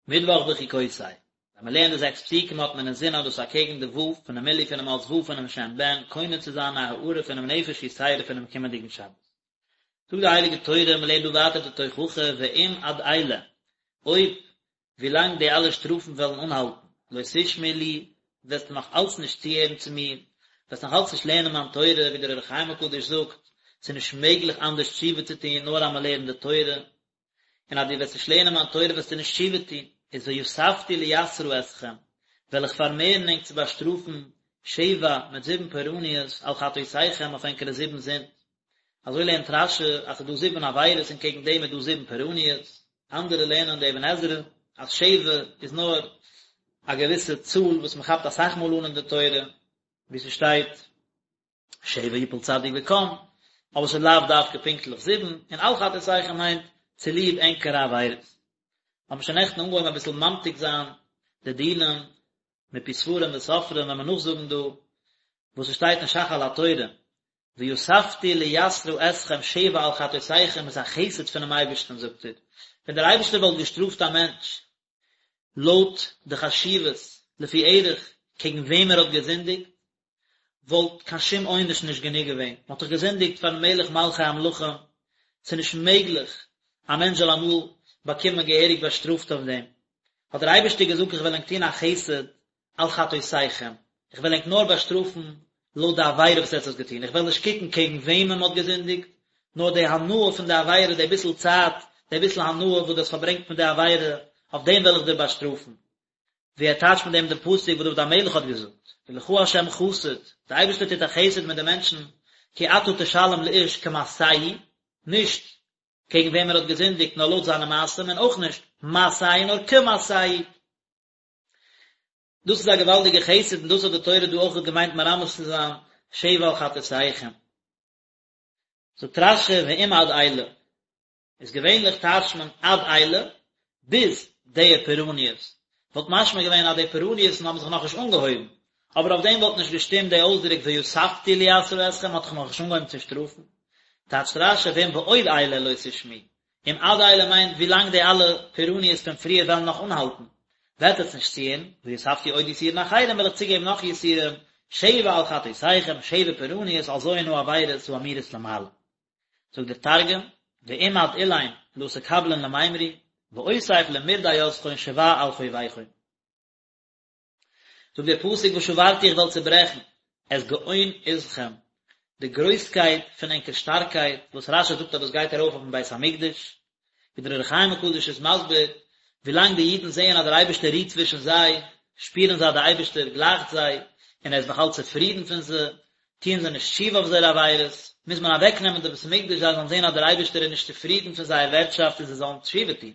מיטוואך בחוקותי, ווען מען לערנט די זעקס פסוקים האט מען אינזין אז דאס אקעגן די ו' פונעם מילוי פונעם אות ו' פונעם שם בן קונה צו זיין א הארה פונעם נפש יתירה פונעם קומענדיגן שבת. זאגט די הייליגע תורה, מען לערנט דא ווייטער די תוכחה ואם עד אלה, אויב ווילאנג די אלע שטראפן וועלן אנהאלטן, לא תשמעו לי, וועסטו נאך אלץ נישט צוהערן צו מיר, וועסט נאך אלץ נישט לערנען מיין תורה, ווי דער אור החיים הקדוש זאגט, ס'איז נישט מעגליך אנדערש תשובה צו טון נאר אז מען לערנט די תורה, און אז דו וועסט נישט לערנען מיין תורה וועסטו נישט תשובה טון, איז ויספתי ליסרה אתכם, וועל איך פארמערן ענק צו באשטראפן, שבע, מיט זיבן פורעניות, על חטאותיכם, אויף ענקערע זיבן זינד. אזוי לערנט רש"י אז ס'איז דא זיבן עבירות און קעגן דעם איז דא זיבן פורעניות, אנדערע לערנען די אבן עזרא אז שבע איז נאר א געוויסע צאל וואס מ'כאפט אסאך מאל אן אין די תורה, ווי ס'שטייט שבע יפול צדיק וקם, אבער ס'איז לאו דווקא פונקטליך זיבן, און על חטאותיכם מיינט צוליב ענקערע עבירות. האבן שוין נעכטן אנגעהויבן אביסל ממתיק זיין די דינים מפי ספרים וסופרים ווען מיר נאכזאגן דא וואס ס'שטייט אין ש"ך על התורה, ויספתי ליסרה אתכם שבע על חטאותיכם איז א חסד פונעם אייבערשטן זאגט ער, ווען דער אייבערשטער וואלט געשטראפט א מענטש לויט די חשיבות לפי ערך קעגן וועם ער האט געזינדיגט, וואלט קיין שום עונש נישט גענוג געווען, מען האט דאך געזינדיגט פארן מלך מלכי המלכים, ס'איז נישט מעגליך א מענטש זאל אמאל באקומען געהעריג באשטראפט אויף דעם, האט דער אייבערשטער געזאגט איך וועל ענק טון א חסד על חטאותיכם, איך וועל ענק נאר באשטראפן לויט די עבירה וואס עטס האט געטון, איך וועל נישט קוקן קעגן וועמען מען האט געזינדיגט, נאר די הנאה פון די עבירה, די ביסל צייט, די ביסל הנאה וואס דו האסט פארברענגט מיט די עבירה, אויף דעם וועל איך דיר באשטראפן. ווי ער טייטשט מיט דעם דעם פסוק וואס דוד המלך האט געזאגט, ולך ה' חסד, דער אייבערשטער טוט א חסד מיט די מענטשן, כי אתה תשלם לאיש כמעשהו, נישט קעגן וועם ער האט געזינדיגט, נאר לויט זיינע מעשים, און אויך נישט מעשהו נאר כמעשהו. דאס איז א געוואלדיגע חסד און דאס האט די תורה דא אויך געמיינט מרמז צו זיין שבע על חטאותיכם. זאגט רש"י ואם עד אלה, איז געווענליך טייטשט מען עד אלה ביז די פורעניות, וואלט משמע געווען אז די פורעניות'ן האבן זיך נאכנישט אנגעהויבן, אבער אויף דעם וואלט נישט געשטימט די אויסדרוק ויספתי ליסרה אתכם מ'האט דאך נאכנישט אנגעהויבן צו שטראפן. טייטשט רש"י ואם בעוד אלה לא תשמעו, אם עד אלה מיינט ווי לאנג די אלע פורעניות פון פריער וועלן נאך אנהאלטן, וועט עטס נישט צוהערן, ויספתי עוד יסורין אחרים וועל איך צוגעבן נאך יסורים, שבע על חטאותיכם, שבע פורעניות על ז' העבירות האמורות למעלה. זאגט דער תרגום, ואם עד אלין לא תקבלון למימרי, ואוסיף למרדי יתכון שבע על חוביכון. זאגט דער פסוק ושברתי איך וועל צעברעכן את גאון עזכם, די גרויסקייט פון ענקער שטארקייט, וואס רש"י זאגט אז דאס גייט ארויף אויפן בית המקדש, ווי דער אור החיים הקדוש איז מסביר, ווילאנג די אידן זעען אז דער אייבערשטער רוהט צווישן זיי, שפירן זיי אז דער אייבערשטער גלייכט זיי, און ער איז נאך אלץ צופרידן פון זיי, טוען זיי נישט תשובה אויף זייערע עבירות, מוז מען אוועקנעמען די בית המקדש זיי זאלן זען אז דער אייבערשטער איז נישט צופרידן פון זייער ווערטשאפט און זיי זאלן תשובה טון.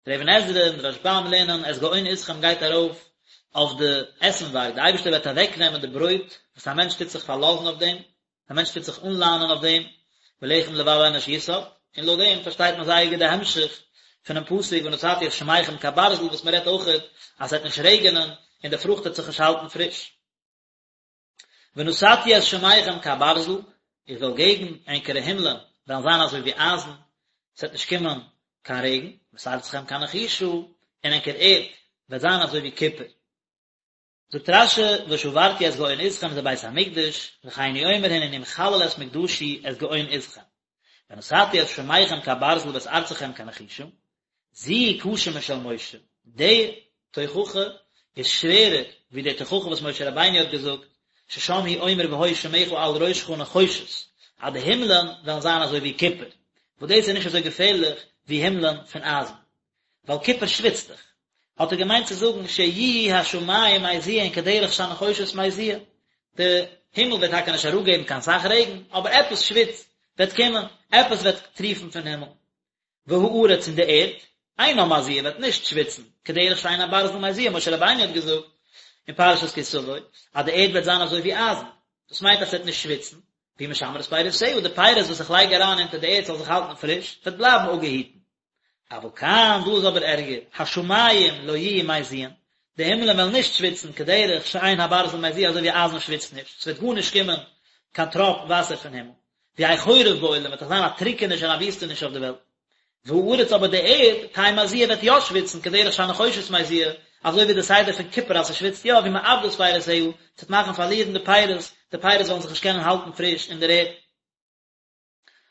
דער אבן עזרא און דער רשב"ם לערנען את גאון עזכם גייט ארויף אויף די עסנווארג, דער אייבערשטער וועט אוועקנעמען די ברויט וואס א מענטש טוט זיך פארלאזן אויף דעם, א מענטש טוט זיך אנלאנען אויף דעם, ולחם לבב אנוש יסעד, און לויט דעם פארשטייט מען זייער גוט די המשך פונעם פסוק ונתתי את שמיכם כברזל וואס מען רעדט אויכעט אז עס וועט נישט רעגענען און די פרוכט וועט זיך נישט האלטן פריש. ונתתי את שמיכם כברזל, איך וועל געבן ענקערע הימלען וועלן זיין אזוי ווי אייזן, עס וועט נישט קומען קיין רעגן, ואת ארצכם כנחושה, און ענקער ערד וועט זיין אזוי ווי קופער. זאגט רש"י, ושברתי את גאון עזכם זה בית המקדש, וכן הוא אומר הנני מחלל את מקדשי את גאון עזכם. ונתתי את שמיכם כברזל ואת ארצכם כנחושה, זו קשה משל משה, די תוכחה איז שווערער ווי די תוכחה וואס משה רבינו האט געזאגט, ששם הוא אומר והיו שמיך על ראשך נחושת, אז די הימלען וועלן זיין אזוי ווי קופער, וואס דאס איז נישט אזוי געפערליך ווי הימלען פון אייזן, ווייל קופער שוויצט דאך. האט ער געמיינט צו זאגן שיהיו השמים מזיעין כדרך שהנחושת מזיע, די הימל וועט טאקע נישט אראפגעבן קיין סך רעגן, אבער עפעס שוויץ וועט קומען, עפעס וועט טריפן פון הימל. והארץ און די ערד, אינה מזיעה וועט נישט שוויצן, כדרך שאין הברזל מזיע, משה רבינו האט געזאגט אין פרשת כי תבוא אז די ערד וועט זיין אזוי ווי אייזן, דאס מיינט אז ס'וועט נישט שוויצן, והיא משמרת פירותיה, די פירות וואס איך לייג אריין אונטער די ערד זאל זיך האלטן פריש, וועט בלייבן אפגעהיטן. אבל כאן, דא איז אבער ערגער, השמים לא יהיו מזיעין, די הימלען וועלן נישט שוויצן, כדרך שאין הברזל מזיע אזוי ווי אייזן שוויצט נישט, ס'וועט גארנישט קומען קיין טראפ וואסער פון הימל. ויהא חורב בעולם, וועט דאך זיין א טריקעניש און א וויסטעניש אויף די וועלט. והארץ אבער די ערד, תהא מזיעה וועט יא שוויצן, כדרך שהנחושת מזיע, אזוי ווי די סדר פון קופער אז ס'שוויצט יא, והיא מאבדת פירותיה, ס'וועט מאכן פארלירן די פירות, די פירות וועלן זיך נישט קענען האלטן פריש אין דער ערד.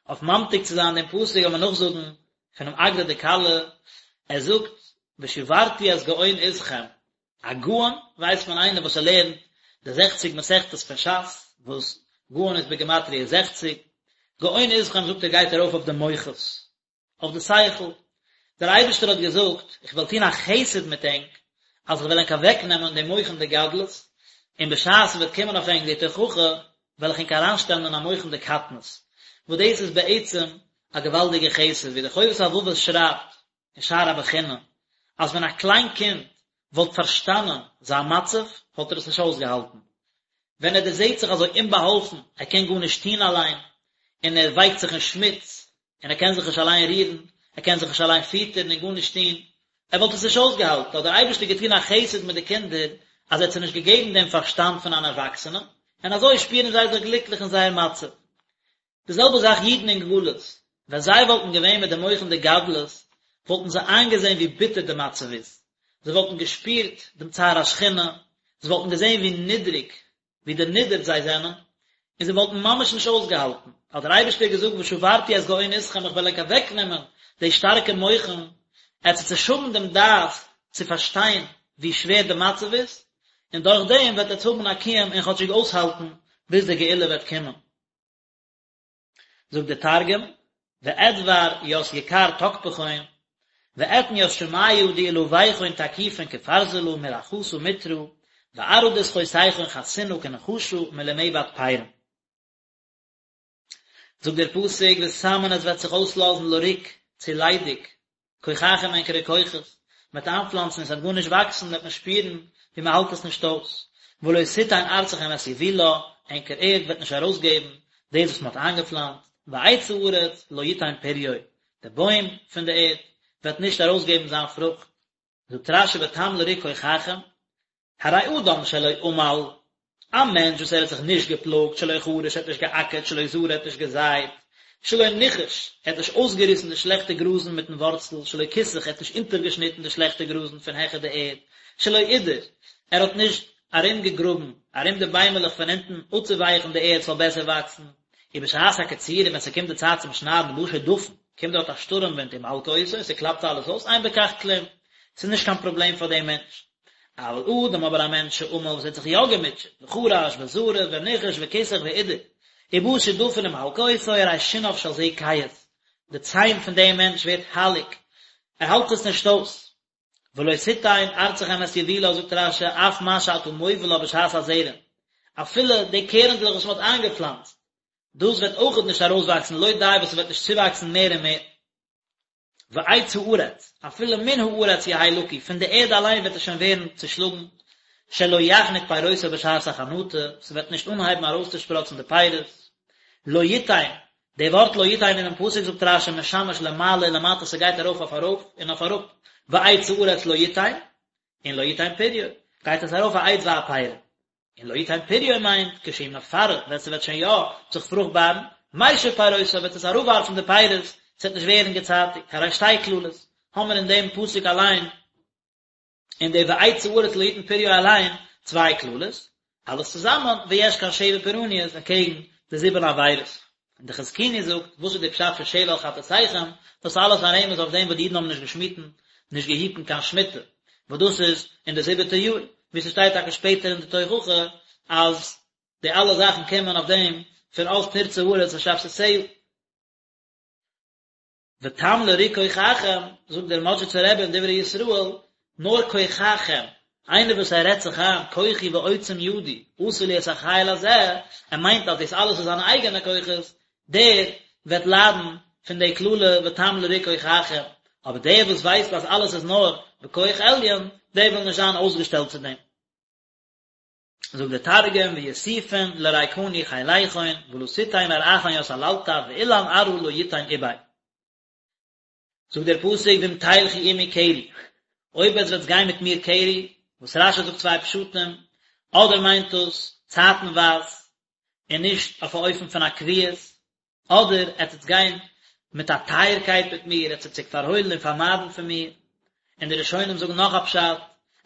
אויף ממתיק צו זיין דעם פסוק וועל מען נאכזאגן פונעם אגרא דכלה, ער זאגט ושברתי את גאון עזכם, א גאון ווייסט מען איינער וואס ער לערנט די זעכציג מסכתות פון שס, וואס גאון איז בגימטריא זעכציג, גאון עזכם זאגט ער גייט ארויף אויף די מוחות, אויף די שכל, דער אייבערשטער האט געזאגט, איך וועל טון א חסד מיט ענק, אז איך וועל ענק אוועקנעמען די מוחין דגדלות, און בשעת ס'וועט קומען אויף ענק די תוכחה, וועל איך ענק אריינשטעלן אין א מוחין דקטנות, וואס דאס איז בעצם א געוואלדיגע חסד, ווי דער חובת הלבבות שרייבט אין שער הבחינה, אז ווען א קליין קינד וואלט פארשטאנען זיין מצב, וואלט ער עס נישט אויסגעהאלטן. ווען ער דערזעט זיך אזוי אומבאהאלפן, ער קען גארנישט טון אליין, און ער ווייקט זיך אין שמוץ, און ער קען זיך נישט אליין רירן, ער קען זיך נישט אליין פיטערן און גארנישט טון, ער וואלט עס נישט אויסגעהאלטן, האט דער אייבערשטער געטון א חסד מיט די קינדער, אז ער האט זיי נישט געגעבן דעם פארשטאנד פון אן ערוואקסענעם, און אזוי שפירן זיי זיך גליקליך אין זייער מצב. די זעלבע זאך אידן אין גלות, ווען זיי וואלטן געווען מיט די מוחין דגדלות, וואלטן זיי איינגעזען ווי ביטער די מצב איז, זיי וואלטן געשפירט דעם צער השכינה, זיי וואלטן געזען ווי נידריג ווי דערנידערט זיי זענען, און זיי וואלטן ממש נישט אויסגעהאלטן, האט דער אייבערשטער געזאגט ושברתי את גאון עזכם איך וועל ענק אוועקנעמען די שטארקע מוחין, עטס וועט נישט האבן דעם דעת צו פארשטיין ווי שווער די מצב איז, און דורך דעם וועט עטס האבן א קיום און כאטשיג אויסהאלטן ביז די גאולה וועט קומען. זאגט דער תרגום, ואדבר ית יקר תקפכון, ואתן ית שמיא דעלויכון תקיפין כפרזלא מרחתא מטרא, וארעא דסחותיכון חסינא כנחשא מלמעבד פרין. זאגט דער פסוק ותמן עס וועט זיך אויסלאזן לריק, צו ליידיג, כוחכם ענקערע כוחות, מ'וועט איינפלאנצן און ס'וועט גארנישט וואקסן, וועט מען שפירן ווי מ'האלט עס נישט אויס, ולא תתן ארצכם את יבולה, ענקער ערד וועט נישט ארויסגעבן דאס וואס מ'האט איינגעפלאנצט, ועץ הארץ לא יתן פריו, דער בוים פון די ערד וועט נישט ארויסגעבן זיין פרוכט. זאגט רש"י ותם לריק כוחכם, הרי אדם שלא עמל, א מענטש וואס ער האט זיך נישט געפלאגט, שלא חרש, ער האט נישט געאקערט, שלא זרע, ער האט נישט געזייט, שלא ניכש, ער האט נישט אויסגעריסן די שלעכטע גראזן מיטן ווארצל, שלא כיסח, ער האט נישט אונטערגעשניטן די שלעכטע גראזן פון העכער די ערד, שלא עידר, ער האט נישט ארומגעגראבן ארום די ביימעלעך פון אונטן אפצואווייכן די ערד ס'זאל בעסער וואקסן, ובשעת הקציר, און ווען ס'קומט די צייט צום שניידן בא שדפון, קומט דארט א שטורעם ווינט ומלקה אותו און ס'קלאפט אלעס אויס, אין בכך כלום, ס'איז נישט קיין פראבלעם פאר דעם מענטש. אבל אדם אבער א מענטש שעמל וואס האט זיך יא געמוטשעט, וחרש וזרע וניכש וכיסח ועידר, ובא שדפון ומלקה אותו, הרי שיניו של זה קהות, די ציין פון דעם מענטש ווערט הייליג, ער האלט עס נישט אויס. ולא תתן ארצכם את יבולה זאגט רש"י אף מה שאתה מובילה בשעת הזרע, אפילו די קערנדלעך וואס מען האט איינגעפלאנצט, דאס וועט אויכעט נישט ארויסוואקסן לא די וואס ס'וועט נישט צואוואקסן מער און מער. ועץ הארץ, אפילו מן הארץ יהא לקוי, פון די ערד אליין וועט עס שוין ווערן צושלאגן, שלא יחנוט פירותיו בשעת החנטה, ס'וועט נישט אנהייבן ארויסצושפראצן די פירות, לא יתן, די ווארט לא יתן אינעם פסוק זאגט רש"י משמש למעלה ולמטה ס'גייט ארויף אויף ארויף און אויף אראפ, ועץ הארץ לא יתן, און לא יתן פריו, גייט עס ארויף העץ והפרי. און לא יתן פריו מיינט כשהוא מפרה ווען ס'וועט שוין יא זיך פרוכטבארן, משיב פירותיו וועט עס אראפווארפן די פירות, ס'וועט נישט ווערן געצייטיגט, הרי שתי קללות האמער אין דעם פסוק אליין, אין די ועץ הארץ לא יתן פריו אליין, צוויי קללות, אלעס צוזאמען ויש כאן שבע פורעניות אקעגן די זיבן עבירות. און די חזקוני זאגט, וואס איז די פשט פון שבע על חטאתיכם, דאס אלעס א רמז אויף דעם וואס די אידן האבן נישט געשמיטן, נישט געהיטן קיין שמיטה, וואס דאס איז אין די זיבעטע יאר, ווי ס'שטייט טאקע שפעטער אין די תוכחה, אז די אלע זאכן קומען אויף דעם פון אז תרצה הארץ את שבתותיה. ותם לריק כוחכם, זאגט דער מאדזשיצער רבי אין דברי ישראל, נאר כוחכם, איינער וואס ער רעדט זיך איין כוחי ועוצם ידי עשה לי את החיל הזה, ער מיינט אז דאס אלעס איז זיינע אייגענע כוחות, דער וועט ליידן פון די קללה ותם לריק כוחכם, אבער דער וואס ווייסט אז אלעס איז נאר בכח עליון, דער וויל נישט זיין אויסגעשטעלט צו דעם. זאגט דער תרגום ויוסיפון לריקני חיליכון ולא תתן ארעכון ית עללתא ואילן ארעא לא יתן איביה. זאגט דער פסוק ואם תלכו עמי קרי, אויב עטס וועטס גיין מיט מיר קרי, וואס רש"י זאגט צוויי פשטים, אדער מיינט דאס צייטנווייז און נישט אויף א אופן פון א קביעות, אדער עטס וועטס גיין. מיט א טייערקייט מיט מיר, עטס וועט זיך פארהוילן און פארמיידן פון מיר, און די ראשונים זאגן נאך א פשט,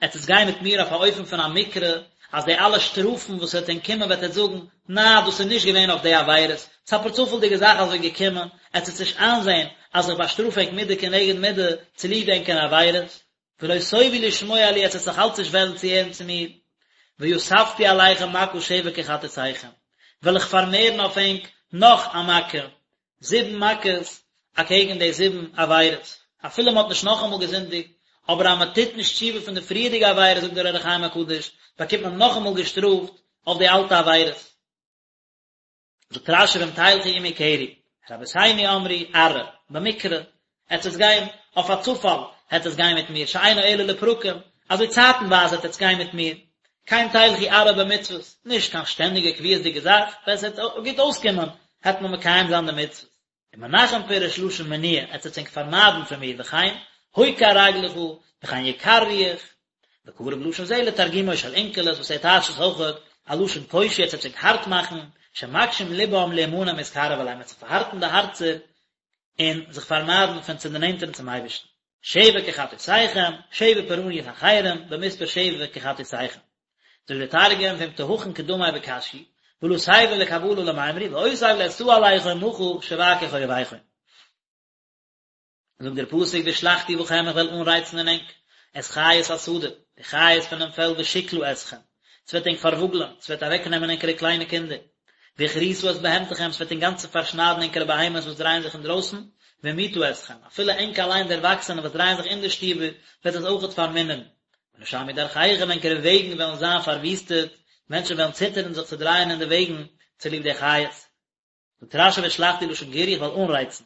עטס וועטס גיין מיט מיר אויף א אופן פון א מקרה, אז די אלע שטראפן וואס וועט ענק קומען וועט עטס זאגן, נעה דאס איז נישט געווען אויף די עבירות, ס'איז א פארצופאלדיגע זאך אזוי געקומען, עטס וועטס נישט איינזען אז איך באשטראף ענק מידה כנגד מידה צוליב ענקערע עבירות. ולא תאבו לשמוע לי, עטס וועטס נאך אלץ נישט וועלן צוהערן צו מיר, ויספתי עליכם מכה שבע כחטאתיכם, וועל איך פארמערן אויף ענק נאך א מכה, זיבן מכות אקעגן די זיבן עבירות, אפילו מען האט נישט נאכאמאל געזינדיגט, אבער אז מען טוט נישט תשובה פון די פריערדיגע עבירות זאגט דער אור החיים הקדוש, באקומט מען נאכאמאל געשטראפט אויף די אלטע עבירות. זאגט רשי ואם תלכו עמי קרי, רבותינו אמרו, ארעא, במקרה, עטס וועטס גיין אויף א צופאל, העט עטס גיין מיט מיר, שאינו אלא לפרקים, אזוי צייטנווייז העט עטס גיין מיט מיר, כן תלכו ארעא במצוות, נישט קיין שטענדיגע קביעות'דיגע זאך, ווען ס'וועט גוט אויסקומען, העט מען מקיים זיין די מצוות. ומנחם פירש לשון מניעה, עטס וועטס ענק פארמיידן פון מיר, וכן, הוקר רגלך, וכן יקר רוח, וקרוב לשון זה לתרגומו של אונקלוס וואס ער טייטשט עס אויכעט א לשון קושי עטס וועטס ענק הארט מאכן, שמקשים לבם להימנע מהתקרב אלי, מ'וועט זיך פארהארטן די הארצער און זיך פארמיידן פון צו דערנענטערן צום אייבערשטן. שבע כחטאתיכם, שבע פורעניות אחרים, במספר שבע כחטאתיכם. זאגט דער תרגום, ואם תהכון קדמי בקשיאי, ולא תיבון לקבלא למימרי, ואוסיף לאתתא עליכון מכא שבע כחוביכון. זאגט דער פסוק והשלחתי בכם איך וועל אנרייצן אין ענק את חית השדה, די חיות פונעם פעלד ושכלה אתכם, ס'וועט ענק פארוואגלען, ס'וועט אוועקנעמען ענקערע קליינע קינדער, והכריתה את בהמתכם, ס'וועט אינגאנצן פארשניידן ענקערע בהמות וואס דרייען זיך אינדרויסן, והמעיטה אתכם, אפילו ענק אליין די ערוואקסענע וואס דרייען זיך אין די שטיבער, וועט עס אויכעט פארמינערן. ונשמו דרכיכם, ענקערע וועגן וועלן זיין פארוויסטעט, מענטשן וועלן ציטערן זיך צו דרייען אין די וועגן צוליב די חיות. זאגט רשי והשלחתי לשון גירוי איך וועל אנרייצן.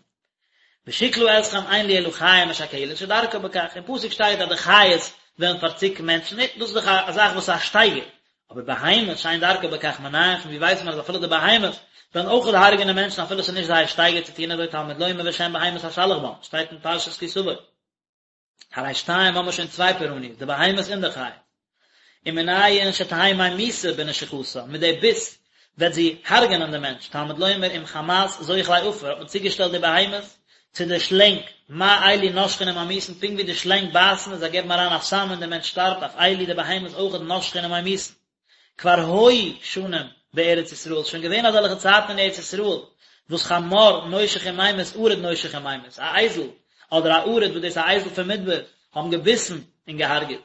ושכלה אתכם אין לי אלא חיה משכלת שדרכה בכך, אין פסוק שטייט אז די חיות וועלן פארצוקן מענטשן, נו, דאס איז דאך א זאך וואס איז א שטייגער, אבער בהמות שאין דרכה בכך מנין, פון ווי ווייסט מען אז אפילו די בהמות וועלן אויך הרג'נען מענטשן אפילו עס איז נישט זייער שטייגער צו טון אזוי תלמוד לומר ושן בהמות אשלח בם, שטייט אין פרשת כי תבוא. הרי שתיים האבן מיר שוין צוויי פורעניות, די בהמות און די חיות. ומנין שתהא ממיתה בנשיכתה, מיט די ביס וועט זי הרג'נען די מענטש, תלמוד לומר אם חמת זוחלי עפר, האט מען צוגעשטעלט די בהמות צו די שלענג, מה אלו נושכין וממיתין, פונקט ווי די שלענג בייסן און זיי געבן אריין א סם און די מענטש שטארבט, אף אלו די בהמות אויכעט נושכין וממיתין. כבר היו שנים בארץ ישראל, שוין געווען אזעלכע צייטן אין ארץ ישראל, וואס חמור נושך וממית ערוד נושך וממית, א אייזל אדער א ערוד וואס דאס איז א אייזל פון מדבר, האבן געביסן און געהארגעט.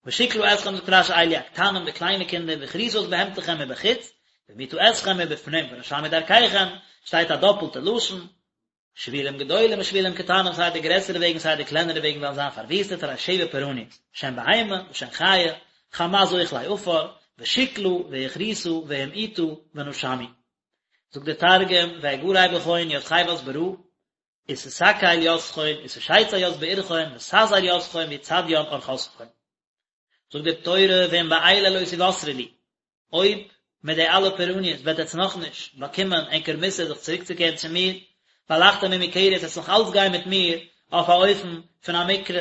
ושכלה אתכם זאגט רשי אלו הקטנים די קליינע קינדער והכריתה את בהמתכם מבחוץ, והמעיטה אתכם מבפנים ונשמו דרכיכם, שטייט א דאפלטע לשון, שבילים גדולים ושבילים קטנים סיי די גרעסערע וועגן סיי די קלענערע וועגן וועלן זיין פארוויסטעט הרי שבע פורעניות, שן בהמה ושן חיה, חמת זוחלי עפר, ושכלה והכריתה והמעיטה ונשמו. זאגט דער תרגום, ואגרי בכון ית חוות ברא, ותתקל יתכון, ותשיצי ית בעירכון, ותזער יתכון, ויצדיין ארחתכון. זאגט די תורה ואם באלה לא תוסרו לי, אויב מיט די אלע פורעניות וועט עטס נאכנישט באקומען ענקער מוסר זיך צוריקצוקערן צו מיר, והלכתם עמי קרי עטס נאך אלץ גיין מיט מיר אויף א אופן פון א מקרה,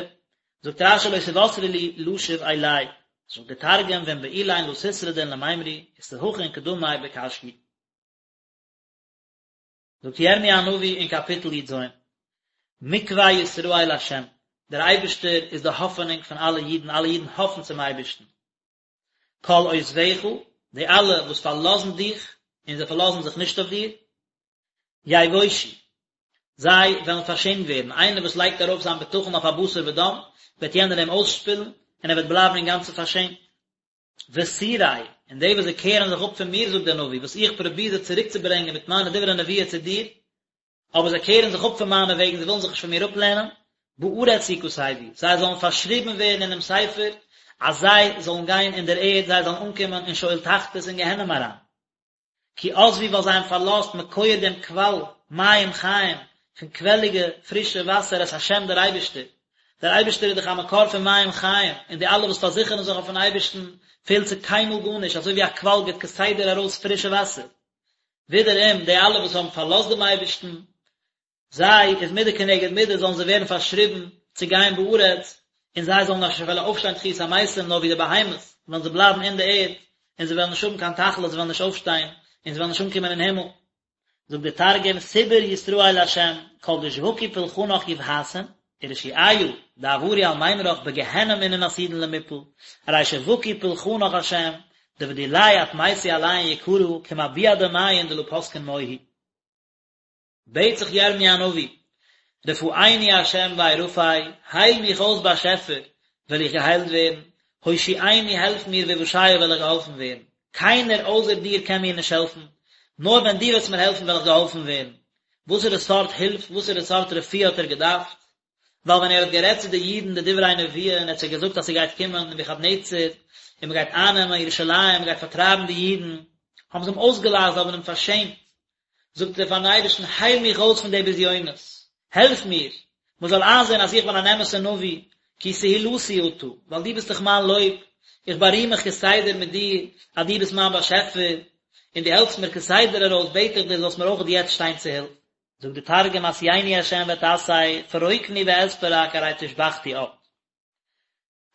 זאגט רשי לא תוסרו לי לשוב אלי, זאגט די תרגום ואם באלין לא תשרדון למימרי ותהכון קדמי בקשיאי. זאגט ירמי' הנביא אין קאפיטל י ז, מקוה ישראל לה', דער אייבערשטער איז די האפענונג פון אלע אידן, אלע אידן האפן צום אייבערשטן. כל עוזביך, די אלע וואס פארלאזן דיך, און זיי פארלאזן זיך נישט אויף דיר, יבושו, זיי וועלן פארשעמט ווערן, איינער וואס לייגט ארויף זיין בטחון אויף א בשר ודם, וועט יענער אים אויסשפילן, און ער וועט בלייבן אינגאנצן פארשעמט. וסורי, און די וואס זיי קערן זיך אפ פון מיר, זאגט דער נביא, וואס איך פרוביר זיי צוריקצוברענגען מיט מיינע דברי נבואה צו דיר, אבער זיי קערן זיך אפ פון מיינע וועגן, זיי ווילן זיך נישט פון מיר אפלערנען, בארץ יכתבו, זיי זאלן פארשריבן ווערן אינעם ספר, אז זיי זאלן גיין אין דער ערד, זיי זאלן אנקומען אין שאול תחתית אין גיהנום אריין. כי עזבו ווייל זיי האבן פארלאזט מקור דעם קוואל מים חיים, פון קוועליגע פרישע וואסער את השם דער אייבערשטער. דער אייבערשטער איז דאך א מקור פון מים חיים, און די אלע וואס פארזיכערן זיך אויפן אייבערשטן פעלט זיי קיינמאל גארנישט, אזוי ווי א קוואל גיבט כסדר ארויס פרישע וואסער. ווידעראום די אלע וואס האבן פארלאזט דעם אייבערשטן, זיי איז מידה כנגד מידה זאלן זיי ווערן פארשריבן צו גיין בארץ, און זיי זאלן נישט וועלן אויפשטיין תחיית המתים נאר ווי די בהמות וועלן זיי בלייבן אין די ערד, און זיי וועלן נישט האבן קיין תכלית זיי וועלן נישט אויפשטיין, און זיי וועלן נישט אנקומען אין הימל. זאגט דער תרגום, סבר ישראל לה', כל דשבקו פולחנך יבהתון, ורשיעיא דעברו על מימרך בגיהנם אינון עתידין למיפל, ארי שבקו פולחנך השם, דבדיליה אטמייתו עליהון יקרא כמא ביעא דמיין דלא פסקין מוהי. בעט זיך ירמי' הנביא, רפאני ה' וארפא, הייל מיך אויס באשעפער, וועל איך געהיילט ווערן, הושיעני העלף מיר ואושעה וועל איך געהאלפן ווערן, קיינער אויסער דיר קען מיר נישט העלפן, נאר ווען דו וועסט מיר העלפן וועל איך געהאלפן ווערן. וואסערע סארט הילף, וואסערע סארט רפואה האט ער געדארפט? ווייל ווען ער האט גערעדט צו די אידן די דברי נבואה און ער האט זיי געזאגט אז ס'גייט קומען נבוכדנצר און מ'גייט אייננעמען ירושלים, מ'גייט פארטרייבן די אידן, האבן זיי אים אויסגעלאכט, זיי האבן אים פארשעמט, זאגט ער פארן אייבערשטן, הייל מיך אויס פון די בזיונות, העלף מיר, מען זאל איינזען אז איך בין אן אמת'ער נביא, כי תהלתי אתה, ווייל דו ביסט דאך מיין לויב, איך בארים מיך כסדר מיט דיר, אז דו ביסט מיין באשעפער, און דו העלפסט מיר כסדר ארויס, בעט איך דיר זאלסט מיר אויך יעצט שטיין צו הילף. זאגט די תרגום, אסייני ה' ואתסי, פרקני ואתפרק, ארי תושבחתי את.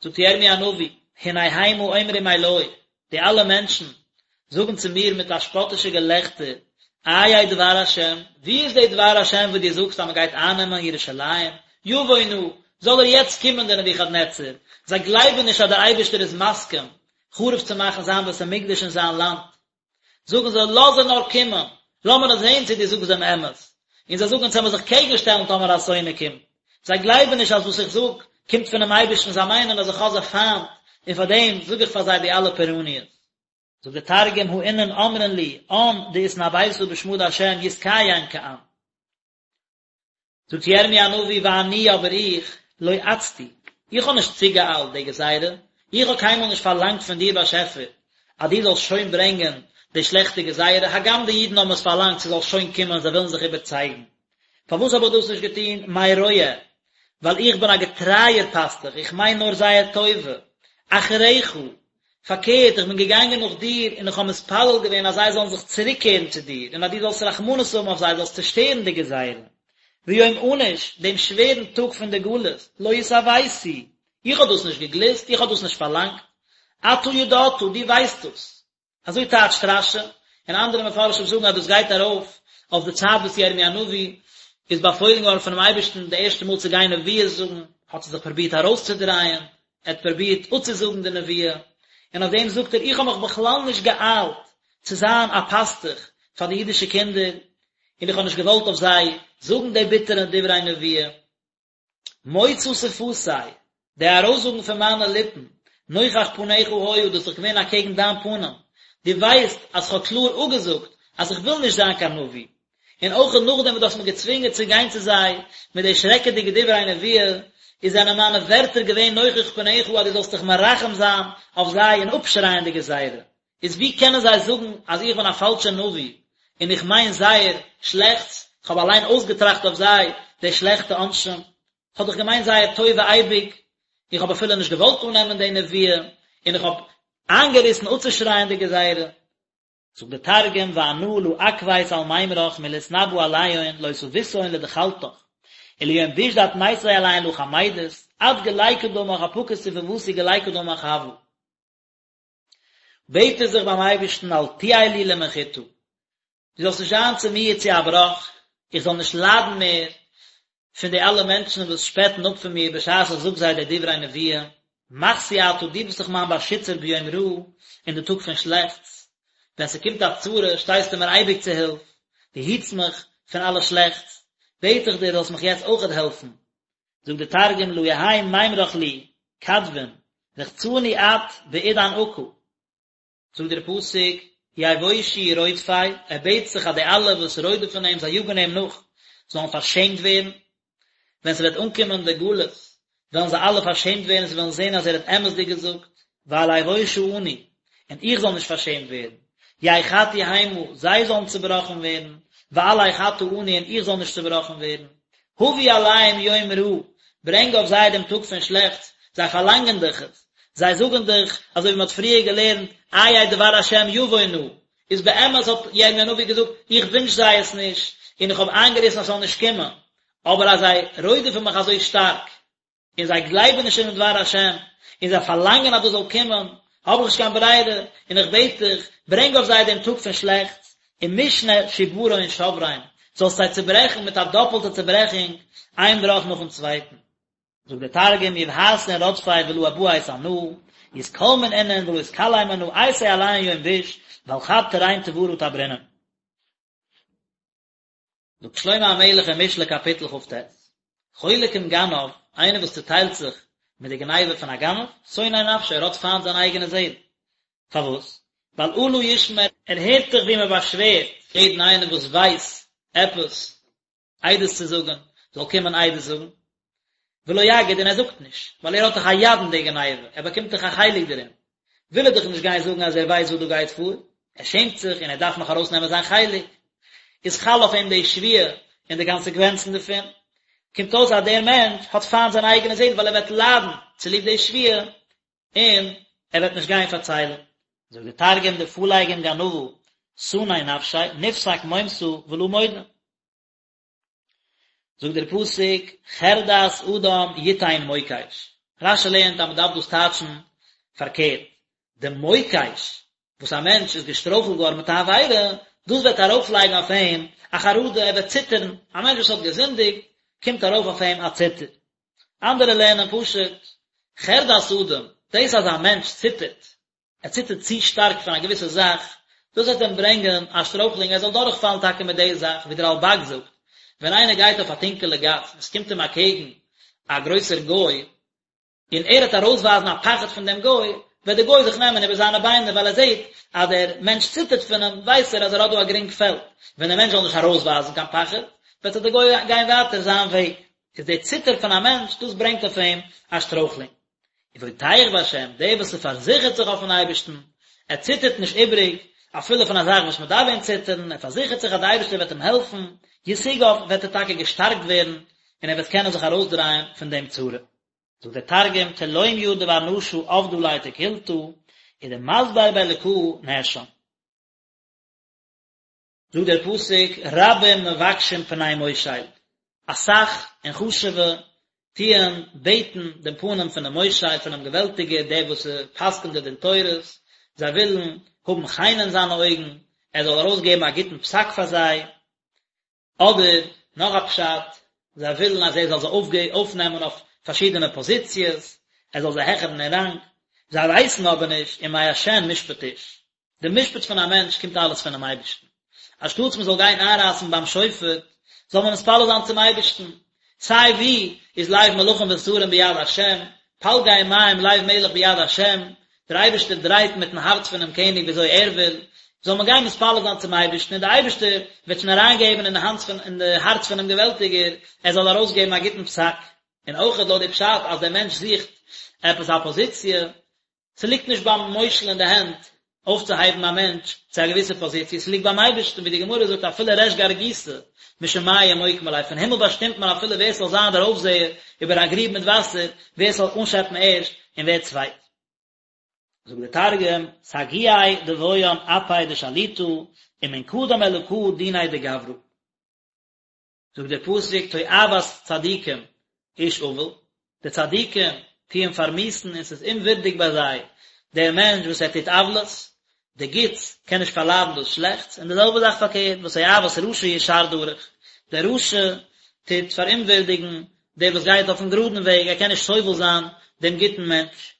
זאגט ירמי' הנביא, הנה המה אומרים אלי, די אלע מענטשן זאגן צו מיר מיט א שפאטישע געלעכטער, איה דבר השם, וואו איז די דבר השם וואס דו זאגסט אז מען גייט אייננעמען ירושלים, יבוא נא, זאל ער יעצט קומען דער נבוכדנצר, זיי גלייבן נישט אז דער אייבערשטער איז מסכים חרוב צו מאכן זיין בית המקדש און זיין לאנד, זאגן זיי, לאז ער נאר קומען, לאמיר נאר זען צו דו זאגסט דעם אמת. און זיי זאגן, אונז וועלן זיך קעגן שטעלן טאמער א שונא קומט. זיי גלייבן נישט אז וואס איך זאג קומט פונעם אייבערשטן, זיי מיינען אז איך האב זיי פיינט, און פאר דעם זאג איך פאר זיי די אלע פורעניות. זאגט דער תרגום, הא אינון אמרין לי, אן דאתנביתא בשמא דהשם יתקיים כען. זאגט ירמי' הנביא ואני אבער איך, לא עצתי, איך האב נישט צוגעאיילט די גזירה, איך האב קיינמאל נישט פארלאנגט פון דיר באשעפער אז דו זאלסט שוין ברענגען די שלעכטע גזירה, הגם די אידן האבן עס פארלאנגט ס'זאל שוין קומען, זיי ווילן זיך איבערצייגן. פארוואס האב איך דאס נישט געטון? מרועה, ווייל איך בין א געטרייער פאסטוך, איך מיין נאר זייער טובה. אחריך, פארקערט, איך בין געגאנגען נאך דיר, און איך האב מתפלל געווען אז זיי זאלן זיך צוריקקערן צו דיר, און אז דו זאלסט רחמנות האבן אויף זיי, זאלסט צעשטערן די גזירה. ויום ענוש, דעם שווערן טאג פון די גלות, לא התאויתי, איך האב דאס נישט געגליסט, איך האב דאס נישט פארלאנגט. אתה ידעת, דו ווייסט דאס. אזוי טייטשט רש"י, און אנדערע מפרשים זאגן אז דאס גייט ארויף אויף די צייט וואס ירמי' הנביא איז באפוילן געווארן פונעם אייבערשטן די ערשטע מאל צו גיין נביאות זאגן, האט ער זיך פרובירט ארויסצודרייען, ער האט פרובירט אפצוזאגן די נבואה, און אויף דעם זאגט ער איך האב מיך בכלל נישט געאיילט צו זיין א פאסטוך פאר די אידישע קינדער, און איך האב נישט געוואלט אויף זיי זאגן די ביטערע דברי נבואה. מוצא שפתי, די ארויסזאגן פון מיינע ליפן, נוכח פניך היה, דאס איז דאך געווען אקעגן דיין פנים, דו ווייסט אז כ'האב קלאר אפגעזאגט אז איך וויל נישט זיין קיין נביא, און אויך נאכדעם וואס דו האסט מיר געצווינגען צו גיין צו זיי מיט די שרעקעדיגע דברי נבואה, איז זענען מיינע ווערטער געווען נוכח פניך אז דו זאלסט דיך מרחם זיין אויף זיי און אפשרייען די גזירה. איז ווי קענען זיי זאגן אז איך בין א פאלשער נביא און איך מיין זייער שלעכטס, איך האב אליין אויסגעטראכט אויף זיי די שלעכטע עונשים, איך האב דאך געמיינט זייער טובה אייביג, איך האב אפילו נישט געוואלט אננעמען די נבואה, און איך האב איינגעריסן אפצושרייען די גזירה. זאגט דער תרגום ואנא לא עכבית על מימרך מלאתנבא עליהון לא תביתהון לדחלתך, וליום ביש דאטמיתיה עליהון לא חמידית, עד גלי קדמך אפקות ספותי גלי קדמך הוה. בעט ער זיך ביים אייבערשטן אל תהי לי למחתה, דו זאלסט נישט זיין צו מיר צו א בראך, איך זאל נישט ליידן מער פון די אלע מענטשן וואס שפעטן אפ פון מיר בשעת איך זאג זיי די דברי נבואה, מחסי אתה, דו ביסט דאך מיין באשיצער ביום רעה, אין די טאג פון שלעכטס, ווען ס'קומט א צרה שטייסטו מיר אייביג צו הילף, דו היטסט מיך פון אלע שלעכטס, בעט איך דיר זאלסט מיך יעצט אויכעט העלפן, זאגט די תרגום לא יהי מימרך לי כדבין רחצני את בעידן עקא, זאגט דער פסוק יבושו רודפי, ער בעט זיך אז די אלע וואס רודפ'ן אים, זיי יאגן אים נאך, זאלן פארשעמט ווערן, ווען ס'וועט אנקומען די גלות, וועלן זיי אלע פארשעמט ווערן, זיי וועלן זען אז ער האט אמת'דיג געזאגט, ואל אבושה אני, און איך זאל נישט פארשעמט ווערן, יחתו המה, זיי זאלן צעבראכן ווערן, ואל אחתה אני, און איך זאל נישט צעבראכן ווערן. הביא עליהם יום רעה, ברענג אויף זיי דעם טאג פון שלעכטס, זיי פארלאנגען דאך עס, זיי זאגן דאך, אזוי ווי מען האט פריער געלערנט, איה דבר השם יבוא נא, איז באמת האט ירמי' הנביא געזאגט, איך ווינטש זיי עס נישט, און איך האב איינגעריסן אז ס'זאל נישט קומען, אבער אז זיי רודפ'ן מיך אזוי שטארק, און זיי גלייבן נישט אינעם דבר השם, און זיי פארלאנגען אז דאס זאל קומען, האב איך נישט קיין ברירה, און איך בעט דיך, ברענג אויף זיי דעם טאג פון שלעכטס. ומשנה שברון שברין, זאלסט זיי צעברעכן מיט א דאפלטע צעברעכונג, איין בראך נאכן צווייטן. זאגט דער תרגום, יבהתון רדפי ולא אבהת אנא, יתכלמון אינון ולא אתכלם אנא, אייתי עליהון יום ביש, ועל חד תרין תברא תברינון. זאגט שלמה המלך אין משלי קאפיטל כ"ט, חולק עם גנב, איינער וואס צוטיילט זיך מיט די גניבה פון א גנב, שונא נפשו, ער האט פיינט זיין אייגענע זעהל. פארוואס? ווייל אלה ישמע, ער הערט דאך ווי מען באשווערט יעדן איינעם וואס ווייסט עפעס עדות צו זאגן, זאל קומען עדות זאגן, ולא יגיד און ער זאגט נישט, ווייל ער האט דאך א יד אין די גניבה, ער באקומט דאך א חלק דערין, וויל ער דאך נישט גיין זאגן אז ער ווייסט וואס דא גייט פאר, ער שעמט זיך און ער דארף נאך ארויסנעמען זיין חלק, איז חל אויף אים די שבועה און די קאנסעקווענצן דערפון, קומט אויס אז דער מענטש האט פיינט זיין אייגענע זעהל ווייל ער וועט ליידן צוליב די שבועה און ער וועט נישט גיין פארציילן. זאגט דער תרגום דפליג עם גנבא סני נפשיה נפסק מומתא ולא מודה. זאגט דער פסוק חרדת אדם יתן מוקש, רש"י לערנט אז מען דארף דאס טייטשן פארקערט, די מוקש וואס א מענטש איז געשטרויכלט געווארן מיט א עבירה, דאס וועט ארויפלייגן אויף אים א חרדה, ער וועט ציטערן, א מענטש וואס האט געזינדיגט, קומט ארויף אויף אים א ציטער. אנדערע לערנען פשוט, חרדת אדם, דאס אז א מענטש ציטערט, ער ציטערט צו שטארק פון א געוויסע זאך, דאס וועט אים ברענגען א שטרויכלונג ער זאל דורכפאלן טאקע מיט די זאך, ווי דער רלב"ג זאגט, ווען איינער גייט אויף א טונקעלע גאס און עס קומט אים אקעגן א גרויסער גוי, און ער וועט ארויסווייזן א פחד פון דעם גוי, וועט דער גוי זיך נעמען איבער זיינע ביינער ווייל ער זעט אז דער מענטש ציטערט פון אים, ווייסט ער אז ער האט דא א גרינג פעלד, ווען דער מענטש זאל נישט ארויסווייזן קיין פחד, וועט זיך דער גוי גיין ווייטער זיין וועג. איז דער ציטער פון א מענטש, דאס ברענגט אויף אים א שטרויכלונג. ובוטח בהשם, דער וואס ס'פארזיכערט זיך אויפן אייבערשטן, ער ציטערט נישט איבעריג, אפילו פון א זאך וואס מען דארף ווען ציטערן, ער פארזיכערט זיך אז דער אייבערשטער וועט אים העלפן, ישוגב, וועט ער טאקע געשטארקט ווערן, און ער וועט קענען זיך ארויסדרייען פון דעם צרה. זאגט דער תרגום, תלומיא דבר נשא עבדא ליה תקלתא, ודמסבר באלקא נאשם. זאגט דער פסוק, רבים מבקשים פני מושל, אסאך און חשוב'ע טוען בעטן דעם פנים פונעם מושל, פונעם געוועלטיגער, דער וואס פסק'נט די דין תורות, זיי ווילן האבן חן אין זיינע אויגן, ער זאל ארויסגעבן א גוטן פסק פאר זיי, אדער נאך א פשט, זיי ווילן אז ער זאל זיי אויפנעמען אויף פארשידענע פאזיציעס, ער זאל זיי העכערן אין ראנג, זיי ווייסן אבער נישט ומה' משפט איש, די משפט פון א מענטש קומט אלעס פונעם אייבערשטן, אנשטאטס מען זאל גיין איינרייסן ביים שופט, זאל מען מתפלל זיין צום אייבערשטן, סיי ווי איז לב מלכים ושרים ביד השם, פלגי מים לב מלך ביד השם, דער אייבערשטער דרייט מיטן הארץ פונעם קעניג ווי אזוי ער וויל, זאל מען גיין מתפלל זיין צום אייבערשטן און דער אייבערשטער וועט שוין אריינגעבן אין די האנט פון אין די הארץ פונעם געוועלטיגער ער זאל ארויסגעבן א גוטן פסק. און אויך לויט די פשט אז דער מענטש זוכט עפעס א פאזיציע, ס'ליגט נישט ביים מושל אין די הענט אויפצוהייבן א מענטש צו א געוויסע פאזיציע, ס'ליגט ביים אייבערשטן, ווי די גמרא זאגט אפילו ריש גרגותא משמיא מוקמי ליה, פון הימל באשטימט מען אפילו ווער ס'זאל זיין דער אויפזעער איבער א גריב מיט וואסער, ווער ס'זאל אנשעפן ערשט און ווער צווייט. זאגט דער תרגום, סגיאי דבעיין אפי דשליטא, ומן קדם אלקא דיניה דגברא. זאגט דער פסוק תועבת צדיקים איש עול, די צדיקים טוען פארמיאוסן און ס'איז אומווירדיג ביי זיי דער מענטש וואס ער טוט עוולות, די גוטס קען נישט פארליידן דאס שלעכטס, און די זעלבע זאך פארקערט, ותועבת רשע ישר דרך, דער רשע טוט פאראומווירדיגן דער וואס גייט אויפן גראדן וועג, ער קען נישט סובל זיין דעם גוטן מענטש.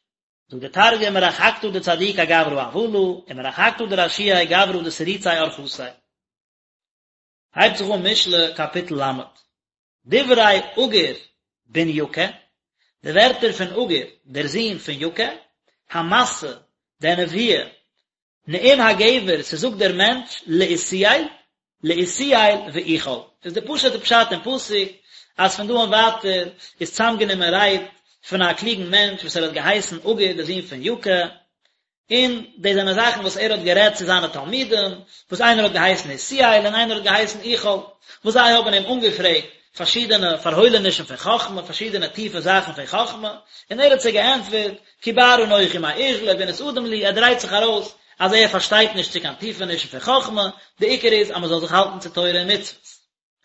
זאגט דער תרגום מרחקתא דצדיקי גברא עוולא, ומרחקתא דרשיעי גברא דתריצי ארחתיה. הייבט זיך אן משלי קאפיטל ל', דברי עגור בן יקה, די ווערטער פון עגור דער זון פון יקה, המסה, דער נביא, נאום הגבר, ס'זאגט דער מענטש, לעותיאל, לעותיאל ואוכל, איז די פשוט'ע פשט אין פסוק, אז פון דא און ווייטער איז צוזאמגענומען רייד פון א קלוגן מענטש וואס ער האט געהייסן עגור דער זון פון יקה, און דאס זענען זאכן וואס ער האט גערעדט צו זיינע תלמידים, וואס איינער האט געהייסן עותיאל און איינער האט געהייסן אוכל, וואס זיי האבן אים אנגעפרעגט פארשידענע פארהוילענישן פון חכמה, פארשידענע טיפע זאכן פון חכמה, און ער האט זיי געענטפערט, כי בער אנכי מאיש ולא בינת אדם לי, ער דרייט זיך ארויס אז ער פארשטייט נישט צו קיין טיפענישן פון חכמה, די עיקר איז אז מען זאל זיך האלטן צו תורה און מצוות.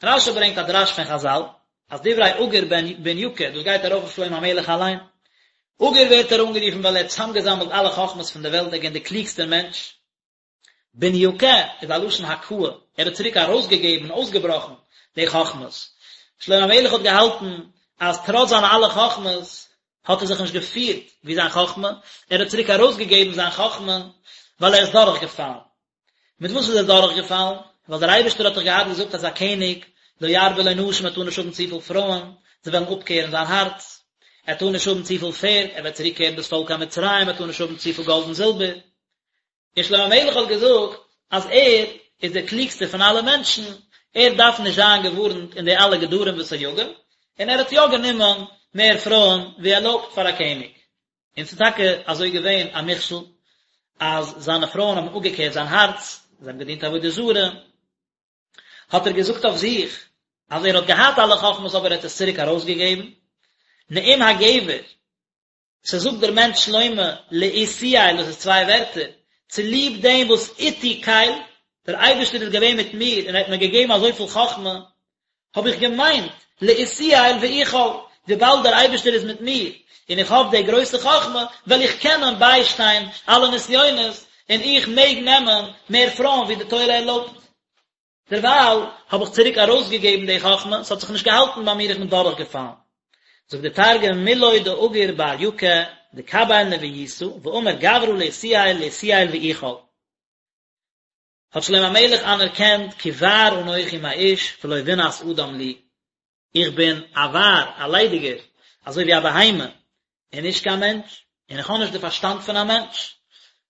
רש"י ברענגט א דרש פון חז"ל, אז דברי עגור בן יקה, דאס גייט ארויף אויף שלמה המלך אליין. עגור ווערט ער אנגערופן ווייל ער האט צוזאמגעזאמלט אלע חכמות פון דער וועלט, ער איז געווען דער קלוגסטער מענטש. בן יקה איז א לשון הכאה, ער האט צוריק ארויסגעגעבן און אויסגעבראכן די חכמות. שלמה המלך האט געהאלטן אז טראץ זיינע אלע חכמות האט ער זיך נישט געפירט ווי זיין חכמה, ער האט צוריק ארויסגעגעבן זיין חכמה ווייל ער איז דורכגעפאלן. מיט וואס איז ער דורכגעפאלן? ווייל דער אייבערשטער האט דאך געהאט געזאגט אז א קעניג, לא ירבה לו נשים, ער טאר נישט האבן צופיל פרויען, זיי וועלן אפקערן זיין הארץ. ער טאר נישט האבן צופיל פערד, ער וועט צוריקקערן דאס פאלק קיין מצרים, ער טאר נישט האבן צופיל גאלד און זילבער. און שלמה המלך האט געזאגט אז ער איז דער קלוגסטער פון אלע מענטשן, ער דארף נישט זיין געווארנט אין די אלע גדרים וסייגים, און ער האט יא גענומען מער פרויען ווי ערלויבט פאר א קעניג. און ס'איז טאקע אזוי געווען א מכשול, אז זיינע פרויען האבן אפגעקערט זיין הארץ, זיי האבן געדינט עבודה זרה, האט ער געזאגט אויף זיך אז ער האט געהאט אלע חכמות אבער ער האט עס צוריק ארויסגעגעבן, נאום הגבר, ס'זאגט דער מענטש שלמה לאתיאל, דאס איז צוויי ווערטער, צוליב דעם וואס איתי קל, דער אייבערשטער איז געווען מיט מיר און ער האט מיר געגעבן אזויפיל חכמה, האב איך געמיינט, לאתיאל ואוכל, וויבאלד דער אייבערשטער איז מיט מיר, און איך האב די גרויסע חכמה, וועל איך קענען ביישטיין אלע נסיונות, און איך מעג נעמען מער פרויען ווי די תורה ערלויבט. דערווייל האב איך צוריק ארויסגעגעבן די חכמה, ס'האט זיך נישט געהאלטן ביי מיר, איך בין דורכגעפאלן. זאגט דער תרגום, מילוי דאגור בר יקה דקביל נבואיתא, ואמר גברא לאתיאל לאתיאל ואוכל. האט שלמה המלך אנערקענט כי בער אנכי מאיש ולא בינת אדם לי, איך בין א בער, א ליידיגער, אזוי ווי א בהמה, און נישט קיין מענטש, און איך האב נישט די פארשטאנד פון א מענטש.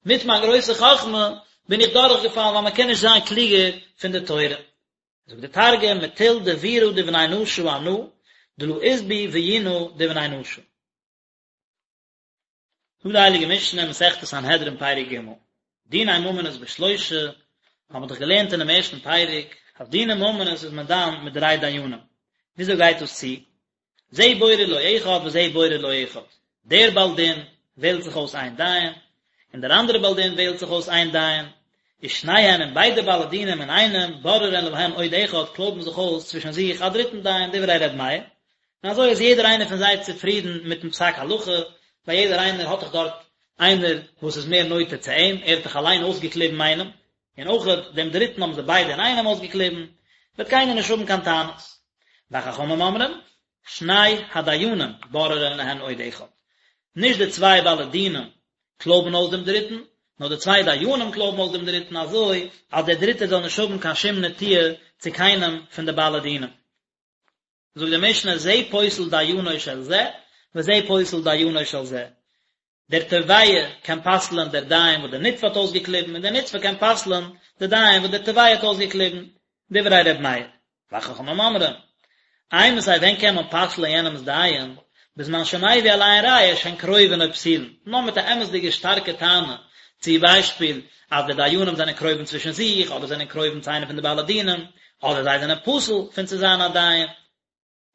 מיט מיין גרויסע חכמה בין איך דורכגעפאלן ווייל מען קען נישט זיין קלוגער פון די תורה. זאגט די תרגום, מטול דבירא דבני נשא אנא, דלא אית בי ביונא דבני נשא. זאגט די הייליגע משנה, מסכת סנהדרין פרק ג', דיני ממונות בשלושה, האבן מיר דאך געלערנט אינעם ערשטן פרק, אז דיני ממונות איז מען דן מיט דריי דיינים, וויאזוי גייט דאס צו? זה בורר לו אחד וזה בורר לו אחד, דער בעל דין וועלט זיך אויס איין דיין, און דער אנדערער בעל דין וועלט זיך אויס איין דיין, ושניהם און ביידע בעלי דינים אינאיינעם בוררין להן עוד אחד קלויבן זיך אויס צווישן זיך א דריטן דיין, דברי ר' מאיר, און אזוי איז יעדער איינער פון זיי צופרידן מיטן פסק הלכה, ווייל יעדער איינער האט דאך דארט איינער וואס איז מער נוטה צו אים, ער האט דאך אליין אויסגעקליבן איינעם, און אויך דעם דריטן האבן זיי ביידע אינאיינעם אויסגעקליבן, וועט קיינער נישט האבן קיין טענות. וחכמים אומרים, שני הדיינים בוררין להן עוד אחד, נישט די צוויי בעלי דינים קלויבן אויס דעם דריטן, נאר די צוויי דיינים קלויבן אויס דעם דריטן אזוי אז דער דריטער זאל נישט האבן קיין שום נטיה צו קיינעם פון די בעלי דינים. זאגט די משנה זה פוסל דיינו של זה וזה פוסל דיינו של זה, דער תובע קען פסל'ען דער דיין וואס דער נתבע האט אויסגעקליבן און דער נתבע קען פסל'ען דער דיין וואס דער תובע האט אויסגעקליבן, דברי ר' מאיר. וחכמים אומרים, אימתי ווען קען מען פסל'ען יענעמ'ס דיין, בזמן שמביא עליהן ראיה שהן קרובין או פסולין, נאר מיט א אמת'דיגע שטארקע טענה, צו ביישפיל אז די דיינים זענען קרובים צווישן זיך, אדער זענען קרובים צו איינע פון די בעלי דינים, אדער זיי זענען פסול פון צו זיין א דיין.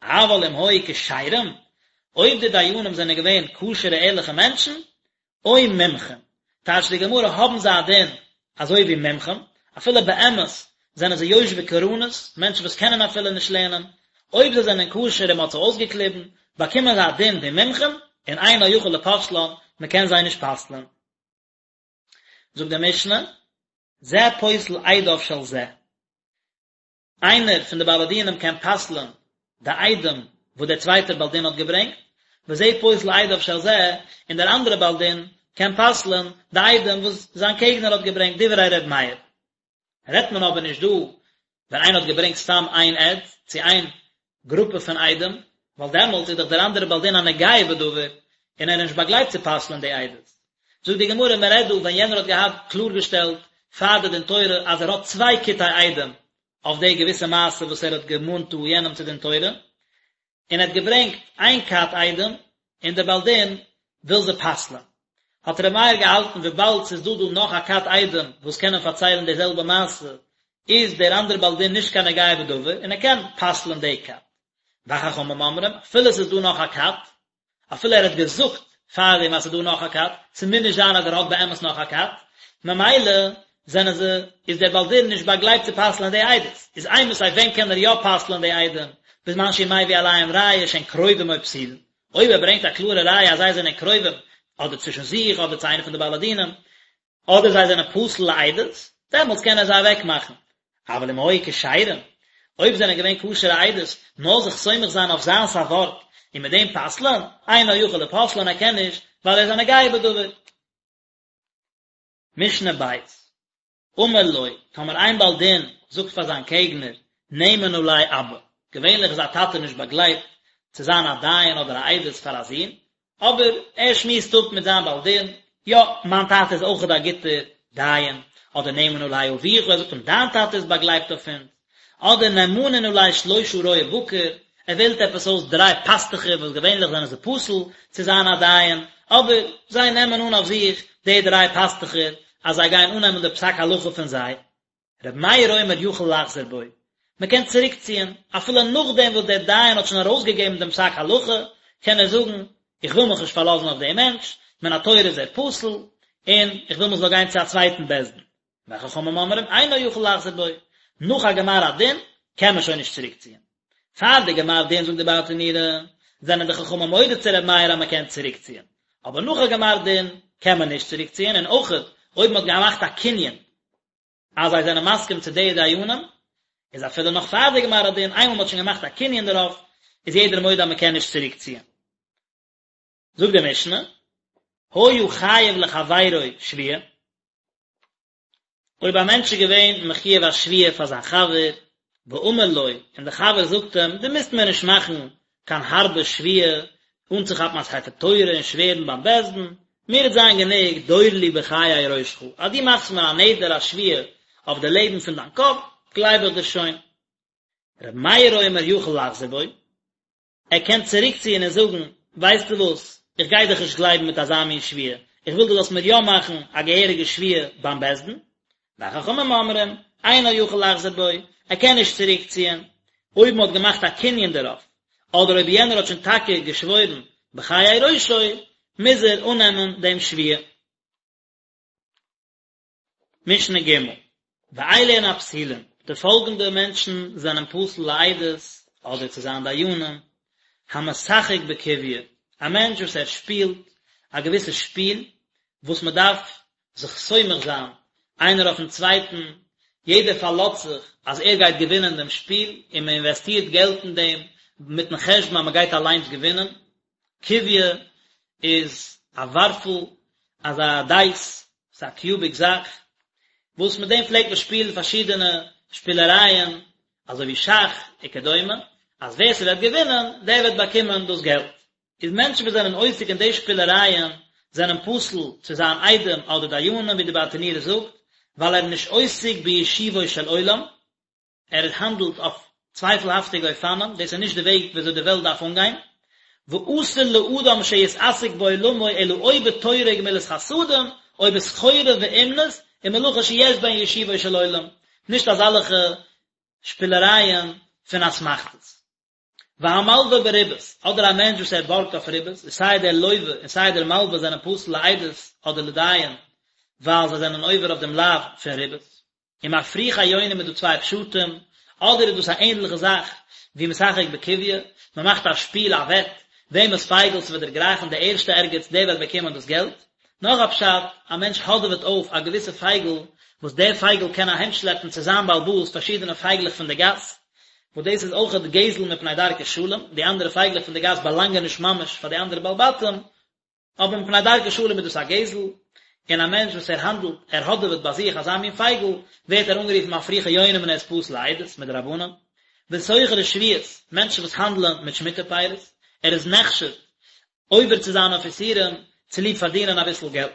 אבל אם היו כשרים, אויב די דיינים זענען געווען כשר'ע ערליכע מענטשן, או מומחים, טייטשט די גמרא האבן זיי א דין אזוי ווי מומחים, אפילו באמת זענען זיי יושבי קרנות, מענטשן וואס קענען אפילו נישט לערנען, אויב זיי זענען כשר און מען האט זיי אויסגעקליבן, באקומען זיי א דין ווי מומחים, און אינו יכול לפוסלן, מען קען זיי נישט פסל'ען. זאגט די משנה, זה פוסל עדיו של זה, איינער פון די בעלי דינים קען פסל'ען די עדים וואס דער צווייטער בעל דין האט געברענגט, וזה פוסל עדיו של זה, און דער אנדערער בעל דין קען פסל'ען די עדים וואס זיין קעגנער האט געברענגט, דברי ר' מאיר. רעדט מען אבער נישט דא ווען איינער האט געברענגט סתם איין עד צו איין גרופע פון עדים, ווייל דעמאלטס איז דאך דער אנדערער בעל דין א נוגע בדבר, און ער איז נישט באגלייבט צו פסל'ען די עדות. זאגט די גמרא, מען רעדט דא ווען יענער האט געהאט קלארגעשטעלט פאר די דין תורה אז ער האט צוויי כיתי עדים אויף די געוויסע מעשה וואס ער האט געמאנט דא יענעם צו דין תורה, און ער האט געברענגט איין כת עדים, און דער בעל דין וויל זיי פסל'ען. האט ר' מאיר געהאלטן וויבאלד ס'איז דא דא נאך א כת עדים וואס קענען פארציילן די זעלבע מעשה, איז דער אנדערע בעל דין נישט קיין נוגע בדבר און ער קען פסל'ען די כת. וחכמים אומרים, אפילו ס'איז דא נאך א כת, אפילו ער האט געזאגט פארדעם אז ס'איז דא נאך א כת, ס'מוז נישט זיין אז ער האט באמת נאך א כת, ממילא זענען זיי, איז דער בעל דין נישט באגלייבט צו פסל'ען די עדות. איז אימתי ווען קען ער יא פסל'ען די עדים, בזמן שהוא מביא עליהם ראיה שהן קרובים או פסולין, אויב ער ברענגט א קלארע ראיה אז זיי זענען קרובים, אדער צווישן זיך, אדער צו איינע פון די בעלי דינים, אדער זיי זענען פסול לעדות. דעמאלטס קען ער זיי אוועק מאכן. אבל אם היו כשרים, אויב זענען געווען כשר'ע עדות, נאר זיך סומך זיין אויף זיינס א ווארט, און מיט דעם פסל'ען, אינו יכול לפוסלן ער קען נישט, ווייל ער איז א נוגע בדבר. משנה ב', אמר לו, טאמער איין בעל דין זאגט פאר זיין קעגנער, נאמן עלי אבא, געווענליך איז א טאטע נישט באגלייבט צו זיין א דיין אדער א עדות פאר א זון, אבער ער שמועסט אפ מיט זיין בעל דין, יא, מיין טאטע איז אויכעט א גוטער דיין, אדער נאמן עלי אביך, ער זאגט אים דיין טאטע איז באגלייבט אויף אונז, אדער נאמנין עלי שלושה רועי בקר, ער וועלט עפעס אויס דריי פאסטוכער וואס געווענליך זענען זיי פסול צו זיין א דיין, אבער זיי נעמען אן אויף זיך די דריי פאסטוכער אז זיי גייען אננעמען די פסק הלכה פון זיי. רבי מאיר אומר יכול לחזור בו, מען קען צוריקציען, אפילו נאכדעם וואס דער דיין האט שוין ארויסגעגעבן דעם פסק הלכה, קען ער זאגן, איך וויל מיך נישט פארלאזן אויף דעם מענטש, מן התורה איז ער פסול, און איך וויל מען זאל גיין צו א צווייטן בית דין. וחכמים אומרים אינו יכול לחזור בו, נאך א גמר הדין קען מען שוין נישט צוריקציען. פאר די גמר דין זאגט די ברטנורא, זענען די חכמים מודה צו ר' מאיר אז מען קען צוריקציען, אבער נאך א גמר דין קען מען נישט צוריקציען, און אויכעט אויב מען האט געמאכט א קנין אז זיי זענען מסכים צו די דיינים, איז אפילו נאך פאר די גמר הדין, איינמאל מען האט שוין געמאכט א קנין דערויף, איז יעדער מודה אז מען קען נישט צוריקציען. זאגט די משנה, היה חייב לחבירו שבועה, אויב א מענטש איז געווען מחויב א שבועה פאר זיין חבר, ואמר לו, און דער חבר זאגט אים, דו מוזט מיר נישט מאכן קיין הארבע שבועה, אנצוכאפן א ספר תורה און שווערן ביים בית דין, מיר וועט זיין גענוג דור לי בחיי ראשך, אז דו מאכסט מיר א נדר א שבועה אויף די לעבן פון דיין קאפ, גלייב איך דיר שוין. ר' מאיר אומר יכול לחזור בו, ער קען צוריקציען און זאגן, ווייסטו וואס, איך גיי דיך נישט גלייבן מיט אזא מין שבועה, איך וויל דו זאלסט מיר יא מאכן א געהעריגע שבועה ביים בית דין. וחכמים אומרים, אינו יכול לחזור בו, ער קען נישט צוריקציען, אויב מען האט געמאכט א קנין דערויף, אדער אויב יענער האט שוין טאקע געשוואוירן בחיי ראשו, מוז ער אננעמען דעם שבועה. משנה ג', ואלו הן הפסולים, די פאלגענדע מענטשן זענען פסול לעדות אדער צו זיין דיינים, המשחק בקוביא, א מענטש וואס ער שפילט א געוויסע שפיל וואס מען דארף זיך סומך זיין איינער אויפן צווייטן, יעדער פארלאזט זיך אז ער גייט געווינען דעם שפיל און מען אינוועסטירט געלט אין דעם מיטן חשבון אז מען גייט אליינס געווינען, קוביא איז א ווארפל, אזא דייס, ס'איז א קיוביק זאך, וואס מיט דעם פלעגט מען שפילן פארשידענע שפילערייען, אזוי ווי שאך וכדומה, אז ווער ס'וועט געווינען, דער וועט באקומען דאס געלט. איז מענטשן וואס זענען עוסק אין די שפילערייען, זענען פסול צו זיין עדים אדער דיינים, ווי די ברטנורא זאגט, ווייל ער איז נישט עוסק בישובו של עולם, ער האנדלט אויף צווייפלהאפטיגע אופנים, דאס איז נישט די וועג ווי אזוי די וועלט דארף אנגיין, ואסור לאדם שיתעסק בעולמו אלא או בתורה וגמילות חסדים, או בסחורה ואומנות, ומלאכה שיש בהן ישובו של עולם, נישט אזאלעכע שפילערייען פון אסמכתות. והמלווה בריבית, אדער א מענטש וואס ער בארגט אויף ריבית, איז סיי דער לווה און סיי דער מלווה זענען פסול לעדות אדער לדיין, ווייל זיי זענען עובר אויף דעם לאו פון ריבית. ומפריחי יונים איז דא צוויי פשטים, אדער איז דאס א ענדליכע זאך ווי משחק בקוביא, מען מאכט א שפיל א וועט, וועמענס פייגל ס'וועט דערגרייכן די ערשטע ערגעץ דער וועט באקומען דאס געלט, נאך א פשט, א מענטש האדעוועט אויף א געוויסע פייגל וואס דער פייגל קען אהיימשלעפן צו זיין בעל הבית פארשידענע פייגלעך פון די גאס, וואס דאס איז אויכעט גזל מפני דרכי שלום, די אנדערע פייגלעך פון די גאס באלאנגען נישט ממש פאר די אנדערע בעלי בתים, אבער מפני דרכי שלום איז דאס א גזל, און א מענטש וואס ער האנדלט, ער האדעוועט ביי זיך אזא מין פייגל, ווערט ער אנגערופן מפריחי יונים און ער איז פסול לעדות, מדרבנן. וסוחרי שביעית, מענטשן וואס האנדלען מיט שמיטה פירות, ער איז נחשד עובר צו זיין אויף איסורים צוליב פארדינען אביסל געלט.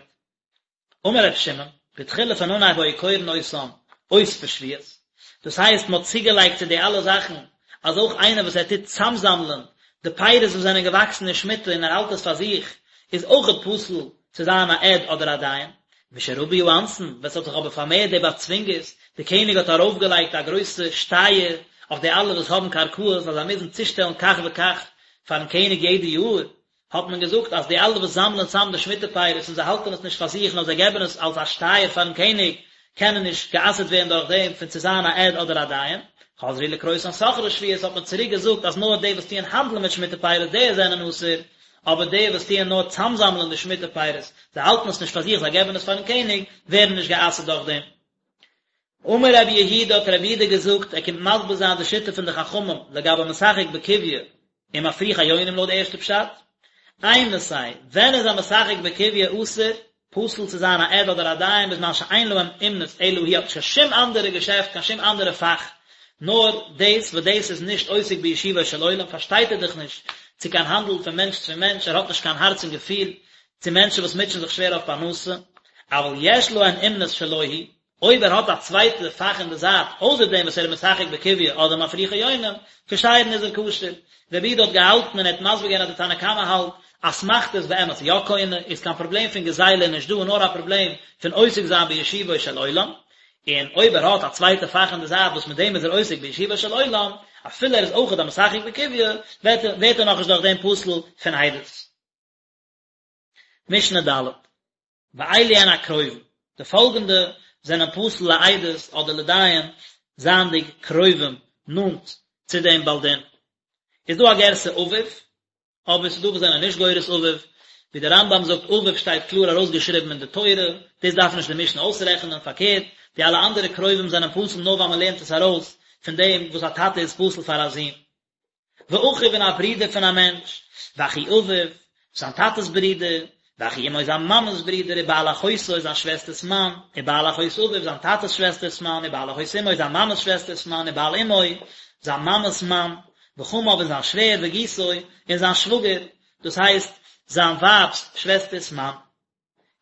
אמר ר' שמעון, בתחילה פון אנהייב היו קורין אותם אוספי שביעית, דאס הייסט מען האט צוגעלייגט צו די אלע זאכן אז אויך איינער וואס ער טוט צאמזאמלען די פירות וואס זענען געוואקסן אין שמיטה און ער האלט עס פאר זיך איז אויכעט פסול צו זיין א עד אדער א דיין. משרבו האונסין, ווען ס'האט זיך אבער פארמערט די באצווינגערס, די קעניג האט ארויפגעלייגט א גרויסע שטייער אויף די אלע וואס האבן קרקעות אז זיי מוזן צושטעלן כך וכך פארן קעניג יעדע יאר, האט מען געזאגט אז די אלע וואס זאמלען צאם די שמיטה פירות און זיי האלטן עס נישט פאר זיך נאר זיי געבן עס אלס א שטייער פארן קעניג, קענען נישט גע'אסר'ט ווערן דורך דעם פון צו זיין א עד אדער א דיין. חזרו לקרותן סוחרי שביעית האט מען צוריק געזאגט אז נאר די וואס טוען האנדלען מיט שמיטה פירות די זענען אסור, אבער די וואס טוען נאר צאמזאמלען די שמיטה פירות, זיי האלטן עס נישט פאר זיך זיי געבן עס פארן קעניג, ווערן נישט גע'אסר'ט דורך דעם. אמר רבי יהודה האט רבי יהודה געזאגט, ער קומט מסביר זיין די שיטה פון די חכמים לגבי משחק בקוביא און מפריחי יונים לויט די ערשטע פשט, אימתי, ווען איז א משחק בקוביא אסור, פסול צו זיין א עד אדער א דיין בזמן שאין להם אומנות אלא הוא האט נישט קיין שום אנדערע געשעפט קיין שום אנדערע פאך נאר דאס וואס דאס איז נישט עוסק בישובו של עולם פארשטייט ער דאך נישט צו קיין האנדל פון מענטש צו מענטש ער האט נישט קיין הארץ און געפיל צו מענטשן וואס מוטשען זיך שווער אויף פרנסה אבל יש להן אומנות שלא הוא אויב ער האט א צווייטע פאך אין די זייט אויסער דעם וואס ער איז משחק בקוביא אדער מפריחי יונים, כשרין איז ער כשר. רבי יהודה האט געהאלטן און ער האט מסביר געווען אז די תנא קמא האלט אסמכתא איז באמת יא קונה, איז קיין פראבלעם פון גזילה נישט דא נאר א פראבלעם פון עוסק זיין בישובו של עולם, און אויב ער האט א צווייטע פאך אין די זייט וואס מיט דעם איז ער עוסק בישובו של עולם, אפילו ער איז אויכעט א משחק בקוביא, ווערט ער נאכנישט דורך דעם פסול פון עדות. משנה ד'. ואלו הן הקרובים, די פאלגענדע זענען פסול לעדות אדער לדיין זייענדיג קרובים נאנט צו דעם בעל דין. איז דא א גירסא אביו, אבער ס'איז דא וואס זענען נישט גורס אביו, ווי דער רמב"ם זאגט אביו שטייט קלאר ארויסגעשריבן אין די תורה, דאס דארף נישט די משנה אויסרעכענען, פארקערט, די אלע אנדערע קרובים זענען פסול נאר ווייל מ'לערנט עס ארויס פון דעם וואס א טאטע איז פסול פאר א זון. ואחיו און א ברודער פון א מענטש, ואחי אביו, זיין טאטעס ברודער, ואחי אמו זיין מאמעס ברודער, ובעל אחותו זיין שוועסטערס מאן, ובעל אחות אביו זיין טאטעס שוועסטערס מאן, ובעל אחות אמו זיין מאמעס שוועסטערס מאן, ובעל אמו זיין מאמעס מאן, וחמיו און זיין שווער, וגיסו און זיין שוואגער, דאס הייסט, זיין ווייב'ס שוועסטערס מאן.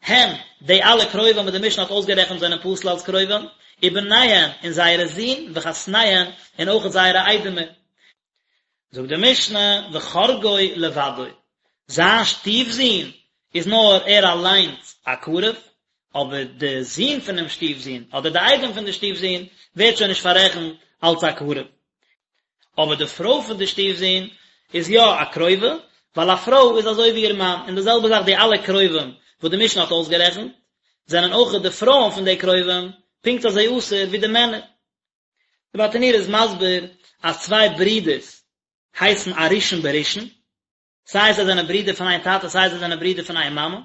הן, די אלע קרובים וואס די משנה האט אויסגערעכנט זענען פסול אלס קרובים, ובניהן, און זייערע זין, וחתניהן, און אויך זייערע איידעמער. זאגט די משנה, וחורגו לבדו, זיין שטיף-זון איז נאר ער אליינס א קרוב, אבער די זון פונעם שטיף-זון, אדער די איידעם פון די שטיף-זון, ווערט שוין נישט פאררעכנט אלס א קרוב. אבער די פרוי פון די שטיף זון איז יא א קרובה, ווייל א פרוי איז אזוי ווי איר מאן, און די זעלבע זאך די אלע קרובים וואס די משנה האט אויסגערעכנט, זענען אויך די פרויען פון די קרובים פונקט אזוי אסור ווי די מענער. די ברטנורא איז מסביר אז צוויי ברידערס הייסן א ראשון בראשון, סיי זיי זענען ברידער פון איין טאטע סיי זיי זענען ברידער פון איין מאמע,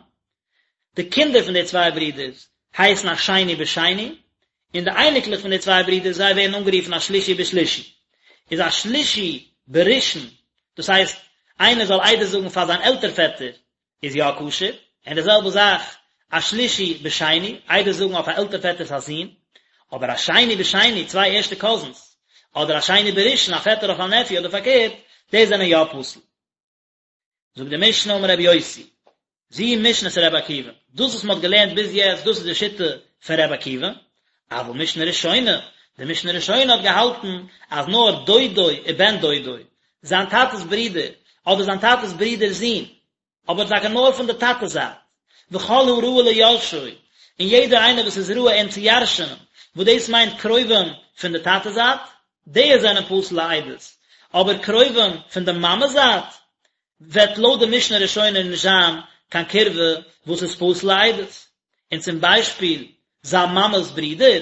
די קינדער פון די צוויי ברידערס הייסן א שני בשני, און די אייניקלעך פון די צוויי ברידערס זיי ווערן אנגערופן א שלישי בשלישי. איז א שלישי בראשון, דאס הייסט איינער זאל עדות זאגן פאר זיין עלטער פעטער איז יא כשר, און די זעלבע זאך א שלישי בשני, עדות זאגן אויף א עלטער פעטער'ס א זון, אבער א שני בשני, צוויי ערשטע קאזינס, אדער א שני בראשון, א פעטער אויף א נעפיו אדער פארקערט, די זענען יא פסול. זאגט די משנה אמר רבי יוסי, זו משנת רבי עקיבא, דאס וואס מען האט געלערנט ביז יעצט דאס איז די שיטה פון רבי עקיבא, אבל משנה ראשונה, די משנה ראשונה האט געהאלטן אז נאר דודו ובן דודו, זיין טאטע'ס ברודער, אדער זיין טאטע'ס ברודער'ס זון, אבער טאקע נאר פון די טאטע זייט, וכל הראוי ליורשו, און יעדער איינער וואס איז ראוי אים צו ירש'נען, וואס דאס מיינט קרובים פון די טאטע זייט, די זענען פסול לעדות, אבער קרובים פון די מאמע זייט, וועט לויט די משנה ראשונה נישט זיין קיין קירבה וואס איז פסול לעדות, און צום ביישפיל זיין מאמע'ס ברודער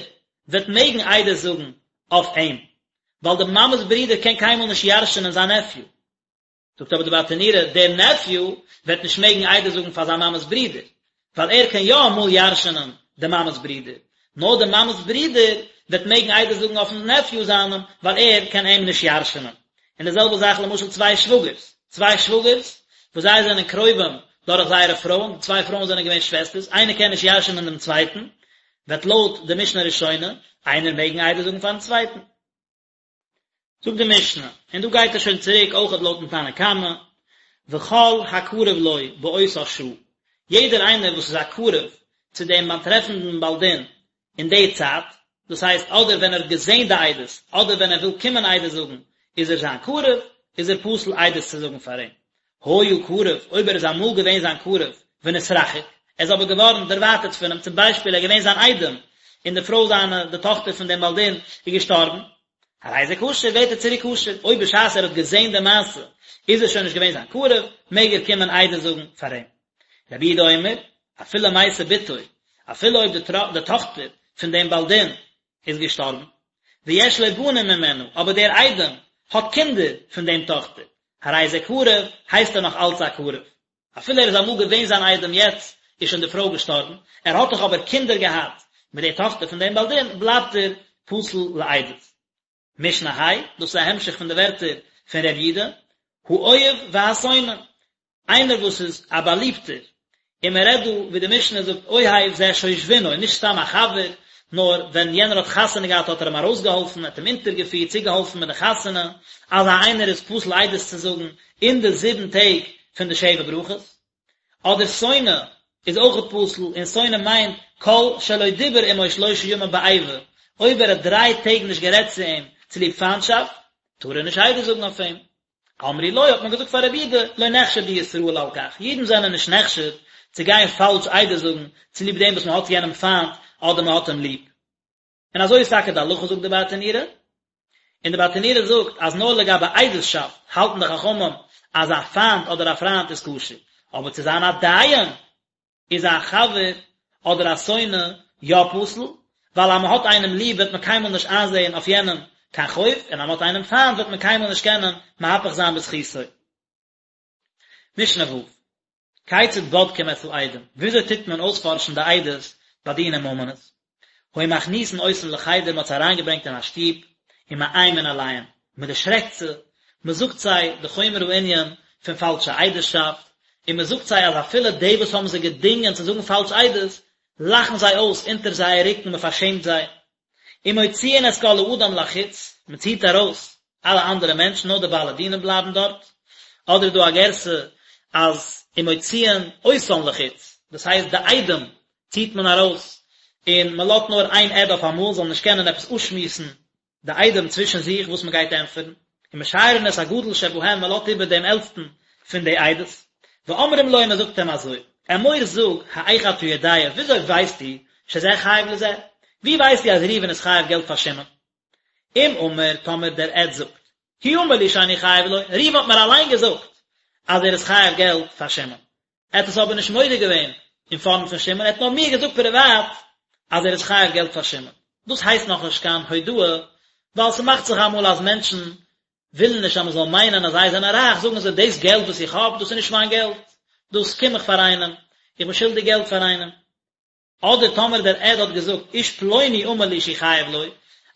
וועט מעגן עדות זאגן אויף אים, ווייל די מאמע'ס ברודער קען קיינמאל נישט ירש'נען זיין נעפיו. זאגט אבער די ברטנורא, דער נעפיו וועט נישט מעגן עדות זאגן פאר זיין מאמע'ס ברודער, ווייל ער קען יא אמאל ירש'נען די מאמע'ס ברודער, נאר די מאמע'ס ברודער וועט מעגן עדות זאגן אויפ'ן נעפיו זיינעם, ווייל ער קען אים נישט ירש'נען. און די זעלבע זאך למשל צוויי שוואגערס, צוויי שוואגערס וואס זיי זענען קרובים דורך זייערע פרויען, די צוויי פרויען זענען געווען שוועסטערס, איינער קען נישט ירש'נען דעם צווייטן, וועט לויט די משנה ראשונה איינער מעגן עדות זאגן פאר'ן צווייטן. זאגט די משנה, און דא גייט ער שוין צוריק אויכעט לויטן תנא קמא, וכל הקרוב לו באותה שעה, יעדער איינער וואס איז א קרוב צו דעם באטרעפנדן בעל דין אין די צייט, דאס הייסט אדער ווען ער האט געזען די עדות, אדער ווען ער וויל קומען עדות זאגן, איז ער זיין קרוב, איז ער פסול עדות צו זאגן פאר אים. היה קרוב, אויב ער איז אמאל געווען זיין קרוב, ונתרחק, ער איז אבער געווארן דערווייטערט פון אים, צום ביישפיל ער איז געווען זיין איידעם, און די פרוי זיינע, די טאכטער פון דעם בעל דין, איז געשטארבן, הרי זה כשר, ווערט ער צוריק כשר, אויב בשעת ער האט געזען די מעשה, איז ער שוין נישט געווען זיין קרוב, מעג ער קומען עדות זאגן פאר אים. רבי יהודה אומר, אפילו מתה בתו, אפילו אויב די טאכטער פון דעם בעל דין איז געשטארבן, ויש לו בנים ממנה, אבער דער איידעם האט קינדער פון דעם טאכטער, הרי זה קרוב, הייסט ער נאך אלץ א קרוב. אפילו ער איז אמאל געווען זיין איידעם יעצט איז שוין די פרוי געשטארבן, ער האט דאך אבער קינדער געהאט. מיט די טאכטער פון דעם בעל דין, בלייבט ער פסול לעדות. משנה ה', דאס איז א המשך פון די ווערטער פון ר' יודא, האוהב והשונא, איינער וואס איז א באליבטער, און מען רעדט דא ווי די משנה זאגט אוהב זה שושבינו, נישט סתם א חבר, נאר ווען יענער האט חתונה געהאט האט ער אים ארויסגעהאלפן, ער האט אים אונטערגעפירט, צוגעהאלפן מיט די חתונה, אזא איינער איז פסול עדות צו זאגן אין די זיבן טעג פון די שבע ברכות. אדער שונא איז אויכעט פסול, און שונא מיינט כל שלא דיבר עמו שלושה ימים באיבה, אויב ער האט דריי טעג נישט גערעדט צו אים צוליב פיינטשאפט, טאר ער נישט עדות זאגן אויף אים. אמרו לו האט מען געזאגט פאר רבי יהודה, לא נחשדו ישראל על כך, אידן זענען נישט נחשד צו גיין פאלש עדות זאגן צוליב דעם וואס מען האט יענעם פיינט אדער מען האט אים ליב. און אזוי איז טאקע די הלכה זאגט די ברטנורא, און די ברטנורא זאגט אז נאר לגבי עדות'שאפט האלטן די חכמים אז א פיינט אדער א פריינט איז כשר, אבער צו זיין א דיין איז א חבר אדער א שונא יא פסול, ווייל אז מען האט איינעם ליב וועט מען קיינמאל נישט איינזעהן אויף יענעם קיין חוב, און אז מען האט איינעם פיינט וועט מען קיינמאל נישט קענען מהפך זיין בזכותו. משנה ו', כיצד בודקים את העדים, וויאזוי טוט מען אויספארשן די עדות ביי דיני ממונות? היו מכניסין אותן לחדר, מען האט זיי אריינגעברענגט אין א שטוב, ומאיימין עליהן, מען דערשרעקט זיי, מען זאגט זיי די חומר הענין פון פאלשע עדות'שאפט, און מען זאגט זיי אז אפילו די וואס האבן זיי געדינגען צו זאגן פאלש עדות, לאכן זיי אויס אונטער זייער רוקן, מען פארשעמט זיי. ומוציאין את כל האדם לחוץ, מען ציט ארויס אלע אנדערע מענטשן, נאר די בעלי דינים בלייבן דארט, אדער איז דא א גירסא אז ומוציאין אותן לחוץ, דאס הייסט די עדים ציט מען ארויס, און מען לאזט נאר איין עד אויף אמאל, זאל נישט קענען עפעס אפשמועסן די עדים צווישן זיך וואס מען גייט ענטפערן, ומשיירין את הגדול שבהם, מען לאזט איבער דעם עלטסטן פון די עדות, ואומרים לו און מען זאגט אים אזוי, אמור זאג, האיך אתה יודע, וויאזוי ווייסטו, שזה חייב לזה? ווי ווייסטו אז ראובן איז חייב געלט פאר שמעון? אם אמר, טאמער דער עד זאגט, הוא אמר לי שאני חייב לו, ראובן האט מיר אליין געזאגט אז ער איז חייב געלט פאר שמעון. ער האט עס אבער נישט מודה געווען אין פארנט פון שמעון, ער האט נאר מיר געזאגט פריוואט אז ער איז חייב געלט פאר שמעון. דאס הייסט נאכנישט קיין הודאה, ווייל ס'מאכט זיך אמאל אז מענטשן ווילן נישט אז מ'זאל מיינען אז זיי זענען רייך, זאגן זיי דאס געלט וואס איך האב, דאס איז נישט מיין געלט, דאס קום איך פאר איינעם, איך בין שולדיג געלט פאר איינעם. אדער טאמער דער עד האט געזאגט איש פלוני אמר לי שהוא חייב לו,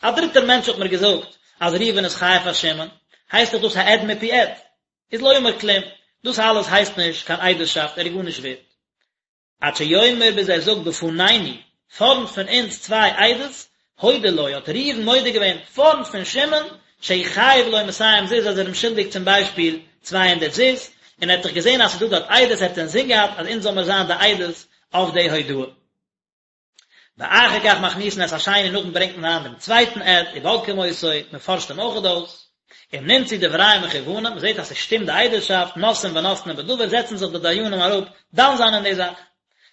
א דריטער מענטש האט מיר געזאגט אז ראובן איז חייב פאר שמעון, הייסט דאך דאס א עד מפי עד, איז לא אמר כלום, דאס אלעס הייסט נישט קיין עדות'שאפט, ער איז גארנישט ווערט. עד שיאמר ביז ער זאגט בפנינו, פארנט פון אונז צוויי עדות, הודה לו, האט ראובן מודה געווען פארנט פון שמעון, שהוא חייב לו מאתים זוז אז ער איז אים שולדיג צום ביישפיל 200 זוז, און ער האט דאך געזען אז ס'איז דא דארט עדות, ער האט אינזין געהאט אז אונז זאל מיר זיין די עדות אויף די הודאה. ואחר כך מכניסין את השני נאכדעם ברענגט מען אריין דעם צווייטן עד, ובודקים אותו, מען פארשט אים אויכעט אויס, אם נמצאו דבריהם מכוונים, מען זעט אז ס'שטימט די עדות'שאפט, נושאים ונותנים בדבר, זעצן זיך די דיינים אראפ דן זיין אין די זאך.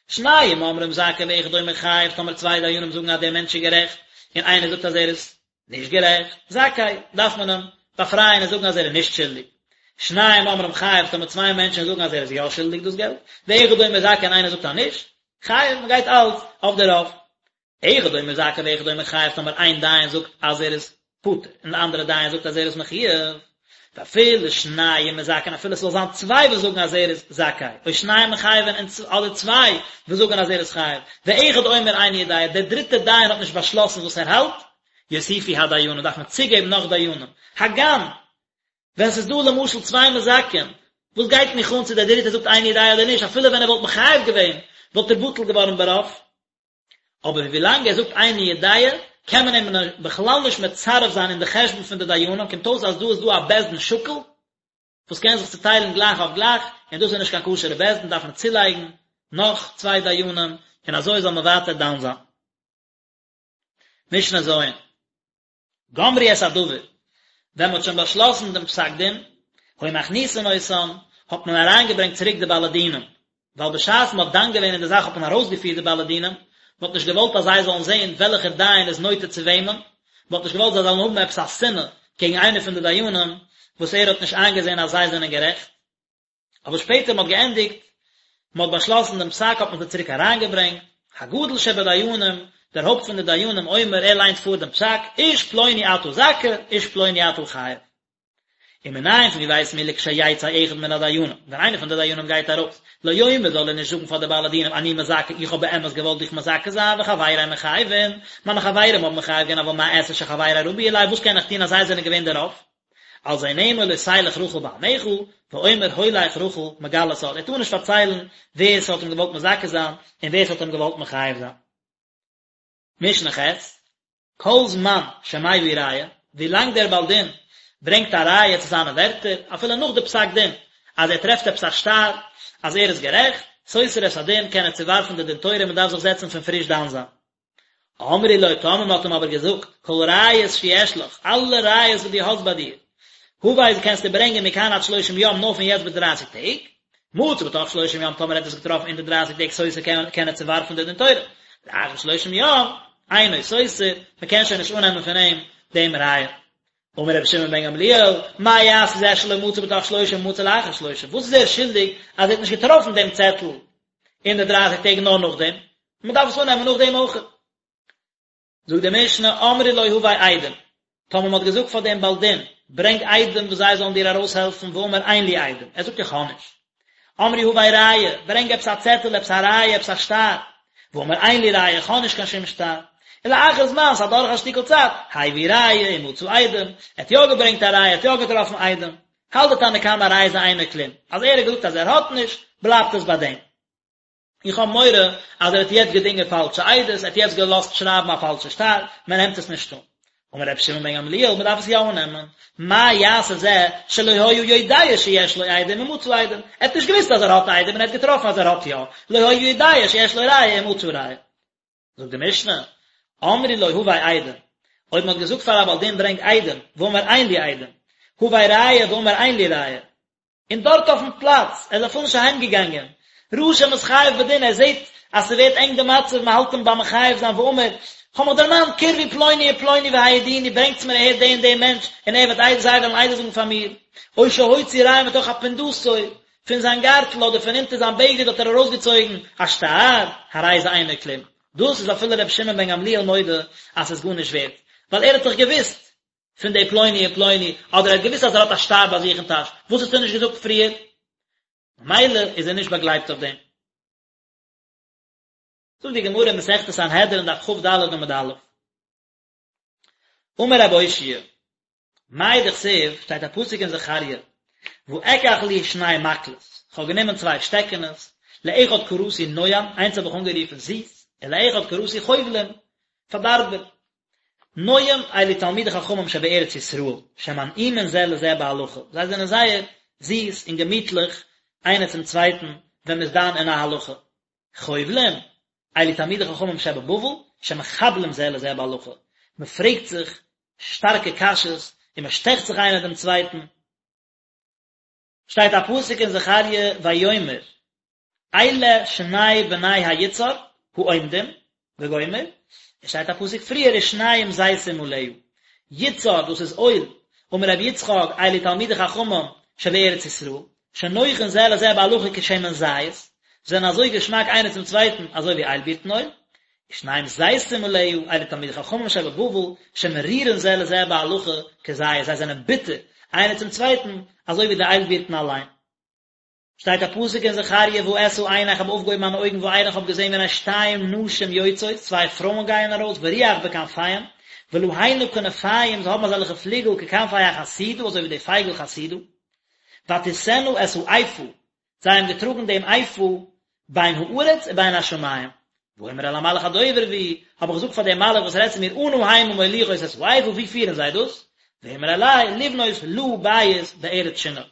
שניים אומרים זכאי ואחד אומר חייב, טאמער צוויי דיינים זאגן אז דער מענטש איז גערעכט, און איינער זאגט אז ער איז נישט גערעכט, זכאי, דארף מען אים באפרייען און זאגן אז ער איז נישט שולדיג. שניים אומרים חייב, טאמער צוויי מענטשן זאגן אז ער איז יא שולדיג דאס געלט, ואחד אומר זכאי און איינער זאגט אז נישט, חייב, מען גייט אלץ אויף די רוב. אחד אומר זכאי ואחד אומר חייב, טאמער איין דיין זאגט אז ער איז פטור און די אנדערע דיין זאגט אז ער איז מחויב, ואפילו שניים מזכין אפילו עס זאל זיין צוויי וואס זאגן אז ער איז זכאי, או שניים מחייבין אדער צוויי וואס זאגן אז ער איז חייב, ואחד אומר איני יודע, דער דריטער דיין האט נישט באשלאסן וואס ער האלט, יוסיפו הדיינים דארף מען צוגעבן נאך דיינים, הגם ווען ס'איז דא למשל צוויי מזכין, וואס גייט מיך אן צו דער דריטער זאגט איני יודע אדער נישט, אפילו ווען ער וואלט מחייב געווען וואלט ער בטל געווארן ברוב. אבער ווילאנג ער זאגט איני יודע קען מען אים בכלל נישט מצרף זיין אין די חשבון פון די דיינים, קומט אויס אז דא איז דא א בית דין שקול וואס קען זיך צוטיילן גלייך אויף גלייך, און דאס איז נישט קיין כשר'ע בית דין, דארף מען צולייגן נאך צוויי דיינים, און אזוי זאל מען ווייטער דן זיין. משנה ז'. גמרו את הדבר, ווען מען האט שוין באשלאסן דעם פסק דין, היו מכניסין אותן, האט מען אריינגעברענגט צוריק די בעלי דינים, ווייל בשעת מען האט דן געווען אין די זאך האט מען ארויסגעפירט די בעלי דינים, מען האט נישט געוואלט אז זיי זאלן זען וועלכער דיין איז נוטה צו וועמען, מען האט נישט געוואלט זיי זאלן האבן עפעס א שנאה קעגן איינער פון די דיינים וואס ער האט נישט איינגעזען אז זיי זענען גערעכט. אבער שפעטער מען האט געענדיגט, מען האט באשלאסן דעם פסק האט מען זיי צוריק אריינגעברענגט, הגדול שבדיינים, דער הויפט פון די דיינים אומר ער ליינט פאר דעם פסק, איש פלוני אתה זכאי, איש פלוני אתה חייב. ומנין פון ווי ווייסן מיר לכשיצא אחד מן הדיינים, ווען איינער פון די דיינים גייט ארויס, לא יאמר זאל ער נישט זאגן פאר די בעלי דינים אני מזכה איך האב באמת געוואלט דיך מזכה זיין וחברי מחייבין, מיינע חברים האבן מחייב געווען אבל מה אעשה שחברי רבו עלי וואס קען איך טון אז זיי זענען געווען די רוב? על זה נאמר לא תלך רכיל בעמיך, ואומר הולך רכיל מגלה סוד, ער טאר נישט פארציילן ווער ס'האט אים געוואלט מזכה זיין און ווער ס'האט אים געוואלט מחייב זיין. משנה ח', כל זמן שמביא ראיה, ווילאנג דער בעל דין ברענגט א ראיה צו זיינע ווערטער, אפילו נאך די פסק דין, אז ער טרעפט עפעס א שטר אז ער איז גערעכט, סותר את הדין, קען ער צוווארפן די דין תורה און מען דארף זיך זעצן פון פריש דן זיין. אמרו לו, טאמער מען האט אים אבער געזאגט, כל ראיות שיש לך, אלע ראיות וואס דו האסט ביי דיר, הבא קענסטו ברענגען מכאן עד שלושים יום נאר פון יעצט ביז דרייסיג טעג, מצא בתוך שלושים יום טאמער ער האט עס געטראפן אין די דרייסיג טעג סותר קען קען ער צוווארפן די דין תורה, לאחר שלושים יום אינו סותר, מען קען שוין נישט אננעמען פון אים דעם ראיה. אמר רבי שמעון בן גמליאל, מה יעשה זה שלא מצא בתוך שלושים ומצא לאחר שלושים, וואס איז ער שולדיג אז ער האט נישט געטראפן דעם צעטל אין די דרייסיג טעג נאר נאכדעם, מען דארף עס אננעמען נאכדעם אויך. זאגט די משנה, אמרו לו הבא עדים, טאמער מען האט געזאגט פאר דעם בעל דין, ברענג עדים וואס זיי זאלן דיר ארויסהעלפן, ואמר אין לי עדים, ער זאגט איך האב נישט. אמרו הבא ראיה, ברענג עפעס א צעטל, עפעס א ראיה, עפעס א שטר. ואמר אין לי ראיה, איך האב נישט קיין שום שטר. ולאחר זמן, ס'איז אדורך א שטיקל צייט, הביא ראיה ומצא עדים, ער האט יא געברענגט א ראיה, ער האט יא געטראפן עדים. האלט די תנא קמא הרי זה אינו כלום, אז ער האט געזאגט אז ער האט נישט, בלייבט עס ביי דעם. איך האב מורא אז ער האט יעצט געדינגען פאלשע עדות, ער האט יעצט געלאזט שרייבן א פאלשע שטר, מען נעמט עס נישט אן. אמר רבי שמעון בן גמליאל, מען דארף עס יא אננעמען, מה יעשה זה שלא היה יודע שיש לו עדים ומצא עדים, ער האט נישט געוואוסט אז ער האט עדים און ער האט געטראפן אז ער האט יא, לא היה יודע שיש לו ראיה ומצא ראיה. זאגט די משנה, אמרו לו הבא עדים, אויב מען האט געזאגט פאר א בעל דין ברענג עדים, ואמר אין לי עדים, הבא ראיה ואמר אין לי ראיה, און דארט אויפן פלאץ, ער איז אפילו נישט אהיים געגאנגען, ראה שמתחייב בדין, ער זעט אז ס'ווערט ענג די מצב, מען האלט אים ביים מחייב זיין, ואמר, כ'האב מיך דערמאנט, קרבו פלוני ופלוני והעידוני, ברענגטס מיר אהער די און די מענטש, און ער וועט עדות, זיי וועלן עדות זאגן פאר מיר, או שהוציא ראיה מתוך אפונדתו, פון זיין גארטל אדער פון אונטער זיין בגד האט ער ארויסגעצויגן א שטר, הרי זה אינו כלום. דאס איז אפילו רבי שמעון בן גמליאל מודה אז ס'איז גארנישט ווערט, ווייל ער האט דאך געוואוסט פון די פלוני און פלוני, אדער ער האט געוואוסט אז ער האט א שטר ביי זיך אין טאש, וואס האסטו נישט געזאגט פריער? ממילא איז ער נישט באגלייבט אויף דעם. זאגט די גמרא אין מסכת סנהדרין דף כ"ד עמוד א', אמר רב אושעיא, מאי דכתיב, שטייט א פסוק אין זכריה, ואקח לי שני מקלות, כ'האב גענומען צוויי שטעקענעס, לאחד קראתי נועם, איינס האב איך אנגערופן זיס, ולאחד קראתי חובלים, פארדארבער. נועם אלו תלמידי חכמים שבארץ ישראל, שמנעימין זה לזה בהלכה, זיי זענען זייער זיס און געמיטליך איינער צום צווייטן ווען מ'איז דן אין א הלכה. חובלים, אלו תלמידי חכמים שבבבל, שמחבלים זה לזה בהלכה, מ'פרעגט זיך שטארקע קשיות און מ'שטעכט זיך איינער דעם צווייטן. שטייט א פסוק אין זכריה ויאמר אלה שני בני היצהר העומדים וגומר, עס שטייט א פסוק פריער ושניים זיתים עליה, יצהר דאס איז אויל, אמר רבי יצחק אלו תלמידי חכמים שבארץ ישראל, שנוחין זה לזה בהלכה כשמן זית, זיי זענען אזוי געשמאק איינער צום צווייטן אזוי ווי איילבירטן אויל, ושניים זיתים עליה, אלו תלמידי חכמים שבבבל, שמרירין זה לזה בהלכה כזית, זיי זענען ביטער איינער צום צווייטן אזוי ווי די איילבירטן אליין. שטייט א פסוק אין זכריה ואשא עיני איך האב אויפגעהויבן מיינע אויגן וארא איך האב געזען והנה שתיים נשים יוצאות צוויי פרויען גייען ארויס ורוח בכנפיהם ולהנה כנפיים זיי האבן אזעלכע פליגל ככנפי החסידה אזוי ווי די פייגל חסידה ותשאנה את האיפה זיי האבן געטראגן דעם איפה בין הארץ ובין השמים ואומר אל המלאך הדובר בי האב איך געזאגט פאר דעם מלאך וואס רעדט צו מיר אנה המה מוליכות את האיפה ווי פירן זיי דאס ויאמר אלי לבנות לה בית בארץ שנער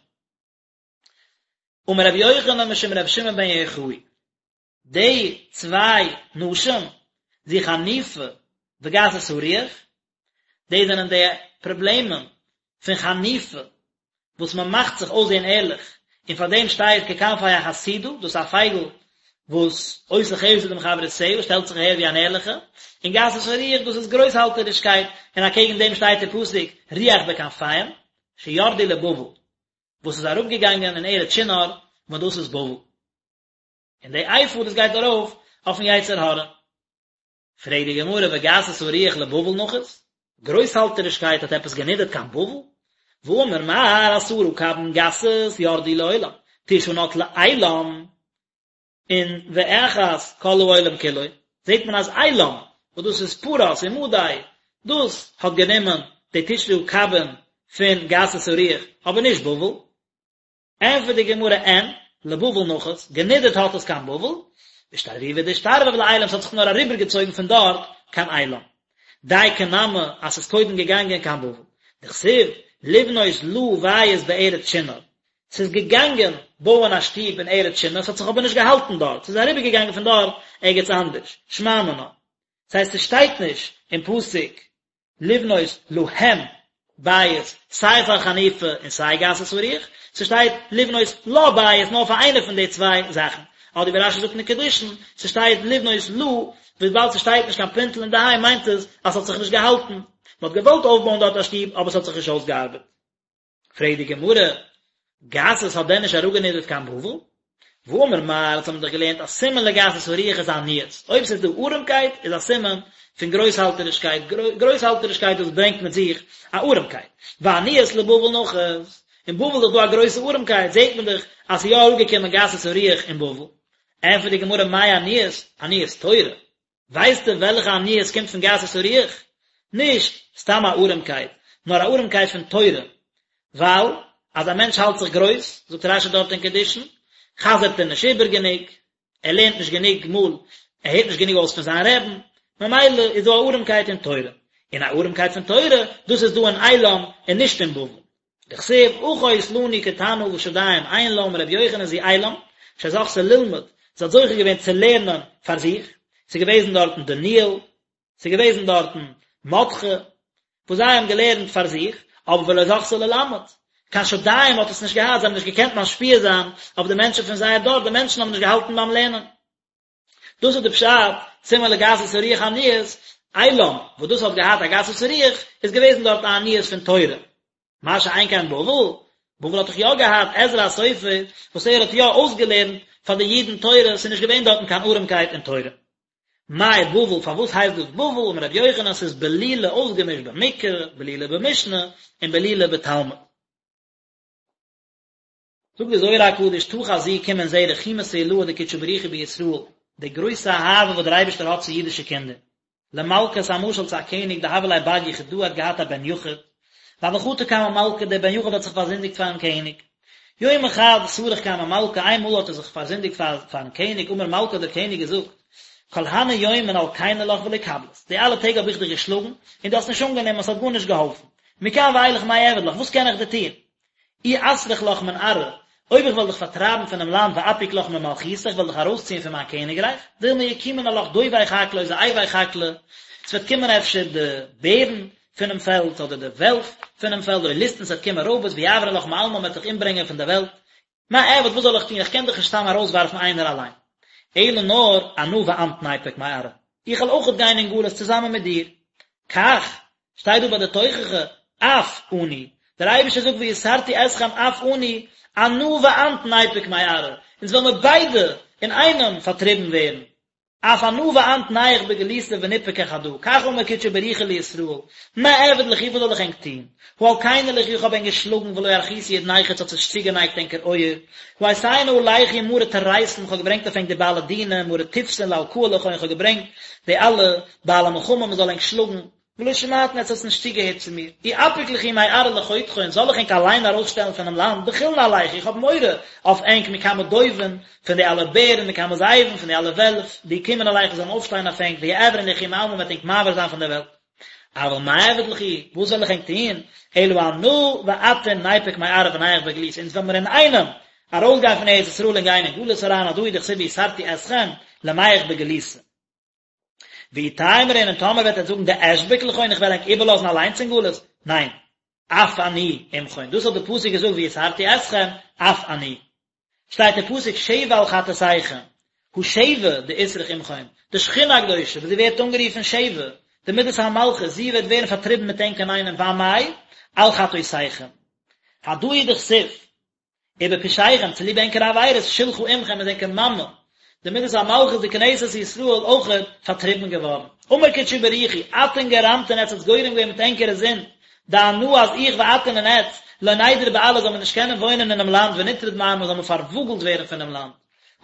אמר רבי יוחנן משום רבי שמעון בן יוחאי, די צוויי נשים, זו חניפה וגסות הרוח, די זענען די פראבלעמען פון חניפה וואס מען מאכט זיך אויסזען ערליך, און פאר דעם שטייט ככנפי החסידה, דאס איז א פייגל וואס עושה חסד עם חברותיה, שטעלט זיך אהער ווי אן ערליכע, און גסות הרוח דאס איז גרויסהאלטערישקייט, און אקעגן דעם שטייט אין פסוק רוח בכנפיהם, שירדו לבבל. וואס איז אראפגעגאנגען אין ארץ שנער, וואס דאס איז בבל. און די איפה דאס גייט ארויף אויפן יצר הרע. פרעגט די גמרא וגסות הרוח לבבל נחית? גרויסהאלטערישקייט האט עפעס גענידערט קיין בבל? והאמר מר עשרה קבין גסות ירדו לעולם, תשעה נטלה עילם, און ואחת כל העולם כולו, זעט מען אז עילם, וואס דאס איז פרס און מדי, דאס האט גענומען די תשעה קבין פון גסות הרוח, אבער נישט בבל. ענטפערט די גמרא אין, לבבל נחית, גענידערט האט עס קיין בבל, ואשתרבובי דאשתרבב לעילם, ס'האט זיך נאר אריבערגעצויגן פון דארט קיין עילם. דייקא נמי אז ס'איז קודם געגאנגען קיין בבל. דכתיב, לבנות לה בית בארץ שנער, ס'איז געגאנגען בויען א שטוב אין ארץ שנער, ס'האט זיך אבער נישט געהאלטן דארט, ס'איז אריבערגעגאנגען פון דארט ערגעץ אנדערש, שמע מינה. ס'הייסט ס'שטייט נישט אין פסוק לבנות להם בית סיי פאר חניפה און סיי גסות הרוח, ס'שטייט לבנות לה בית נאר פאר איינע פון די צוויי זאכן, אדער ווי רש"י זאגט אין קידושין, ס'שטייט לבנות לה, וויבאלד ס'שטייט נישט קיין פינטל אין די ה' מיינט עס אז ס'האט זיך נישט געהאלטן, מ'האט געוואלט אויפבויען דארט א שטוב אבער ס'האט זיך נישט אויסגעארבעט. פרעגט די גמרא, גסות האט דען נישט אראפגענידערט קיין בבל? והאמר מר, אונז האבן דאך געלערנט אז סימן לגסות הרוח איז עניות, אויב ס'איז דא ארעמקייט איז א סימן פון גרויסהאלטערישקייט, גרויסהאלטערישקייט דאס ברענגט מיט זיך א ארעמקייט, ועניות לבבל נחית, אין בבל איז דאך דא א גרויסע ארעמקייט, זעט מען דאך אז ס'איז יא אראפגעקומען גסות הרוח אין בבל. ענטפערט די גמרא מאי עניות? עניות תורה. ווייסטו וועלכע עניות קומט פון גסות הרוח? נישט סתם א ארעמקייט, נאר א ארעמקייט פון תורה, ווייל אז א מענטש האלט זיך גרויס, זאגט רש"י דארט אין קידושין, חזר'ט ער נישט איבער גענוג, ער לערנט נישט גענוג מאל, ער הערט נישט גענוג אויס פון זיין רעבן, ממילא איז דא א ארעמקייט אין תורה, און א ארעמקייט פון תורה, דאס איז דא אין עילם און נישט אין בבל. דכתיב אחות לנו קטנה ושדים אין לה אמר רבי יוחנן זו עילם שזכתה ללמוד, זי האט זוכה געווען צו לערנען פאר זיך, ס'איז געוועזן דארטן דניאל, ס'איז געוועזן דארטן מרדכי, וואס זיי האבן געלערנט פאר זיך, אבער ולא זכתה ללמד, קיין שדיים האט עס נישט געהאט, זיי האבן נישט געקענט משפיע זיין אויף די מענטשן פון זייער דור, די מענטשן האבן נישט געהאלטן ביים לערנען. דאס איז די פשט, סימן לגסות הרוח עניות, עילם, וואס דאס האט געהאט א גסות הרוח, איז געוועזן דארט א עניות פון תורה. מה שאין כן בבל, בבל האט דאך יא געהאט עזרא הסופר, וואס ער האט יא אויסגעלערנט פאר די אידן תורה, ס'איז נישט געווען דארטן קיין ארעמקייט אין תורה. מאי בבל, פארוואס הייסט דאס בבל, אמר רבי יוחנן, ס'איז בלולה אויסגעמישט במקרא, בלולה במשנה, און בלולה בתלמוד. זאגט די זוהר הקדוש תא חזי קום און זעה רחימותא עילאה דקודשא בריך הוא בישראל, די גרויסע אהבה וואס דער אייבערשטער האט צו אידישע קינדער. למלכא ס'איז א משל צו א קעניג דהוה ליה בר יחידא האט געהאט א בן יחיד, והוה חטי קמי מלכא דער בן יחיד האט זיך פארזינדיגט פארן קעניג. יומא חד סרח קמי מלכא איין מאל האט ער זיך פארזינדיגט פארן קעניג אמר מלכא האט דער קעניג געזאגט כל הני יומין אלקינא לך ולא קבלת די אלע טעג האב איך דיך געשלאגן און דו האסט נישט אנגענומען עס האט גארנישט געהאלפן מכאן ואילך מה אעביד לך וואס קען איך דיר טון אי אסרח לך מן ארעא, אויב איך וועל דיך פארטרייבן פונעם לאנד ואפיק לך ממלכותא, איך וועל דיך ארויסציען פון מיין קעניגרייך, דילמא יקומון עלך דובי חקלא או זאבי חקלא, עס וועט קומען אפשר די בערן פונעם פעלד אדער די וועלף פונעם פעלד או ליסטין עס וועט קומען רויבערס ויעברון לך מעלמא מען וועט דיך אומברענגען פון דער וועלט, מה אעביד וואס זאל איך טון איך קען דיך נישט סתם ארויסווארפן איינער אליין. אלא נאר אנא ואנת ניפוק מארעא, איך וועל אויכעט גיין אין גלות צוזאמען מיט דיר. כך, שטייט דא ביי די תוכחה, אף אני, דער אייבערשטער זאגט ויסרתי אתכם אף אני, אנא ואנת ניפוק מארעא, אונז וועלן מיר ביידע אינאיינעם פארטריבן ווערן, אף אנא ואנת נייח בגלותא וניפקא חדא, כך אמר קודשא בריך הוא לישראל, מה אעביד לכו וואס זאל איך ענק טון, הא אלקינא לכו איך האב ענק געשלאגן ולא ארכיתו אודנייכו עטס האטס נישט צוגענייגט ענקער אויער, הא אייתינא עלייכו מארי טריתין איך האב געברענגט אויף ענק די בעלי דינים, מארי טופסין לאלקא לכון איך האב געברענגט די אלע בעלי מלחמה מען זאל ענק שלאגן, ולא שמעתון עטס האטס נישט צוגעהערט צו מיר, אי אפיק לכו מארעא לחודכון זאל איך ענק אליין ארויסשטעלן פונעם לאנד, דחילנא עלייכו איך האב מורא אויף ענק מקמי דובין, פון די אלע בערן, מקמי זאבין, פון די אלע וועלף, דיקומון עלייכו זאלן אויפשטיין אויף ענק, ויעברון לכו מעלמא מ'וועט ענק מעביר זיין פון דער וועלט. אבל מה אעביד לכו, וואס זאל איך ענק טון, אלא אנא ואתון ניפוק מארעא ונייח בגלותא, אונז וועלן מיר אינאיינעם ארויסגיין פון ארץ ישראל און גיין אין גלות אריין, הדא הוא דכתיב ויסרתי אתכם למיח בגלותא. ואי תימרון און טאמער וועט עטס זאגן דאשביק לכון איך וועל ענק איבערלאזן אליינס אין גלות, ניין, אף אני עמכון, דאס האט די פסוק געזאגט ויסרתי אתכם, אף אני. שטייט אין פסוק שבע על חטאתיכם, הא שבע דאתרח עמכון, די שכינה הקדושה וואס זי ווערט אנגערופן שבע, די מידת המלכות, זי וועט ווערן פארטריבן מיט ענק אינאיינעם ואמאי על חטאתיכם. הדא הוא דכתיב, ובפשעיכם, צוליב ענקערע עבירות, שלחה אמכם איז ענקער מאמע, די מידת המלכות די כנסת ישראל אויכעט פארטריבן געווארן. אמר קודשא בריך הוא, אתון גרמתון עטס האטס גורם געווען מיט ענקערע זינד, דאנא אז איך ואתון און עטס, לא נידור בארעא זאל מען נישט קענען וואוינען אינעם לאנד ונטרד מעמא זאל מען פארוואגלט ווערן פונעם לאנד.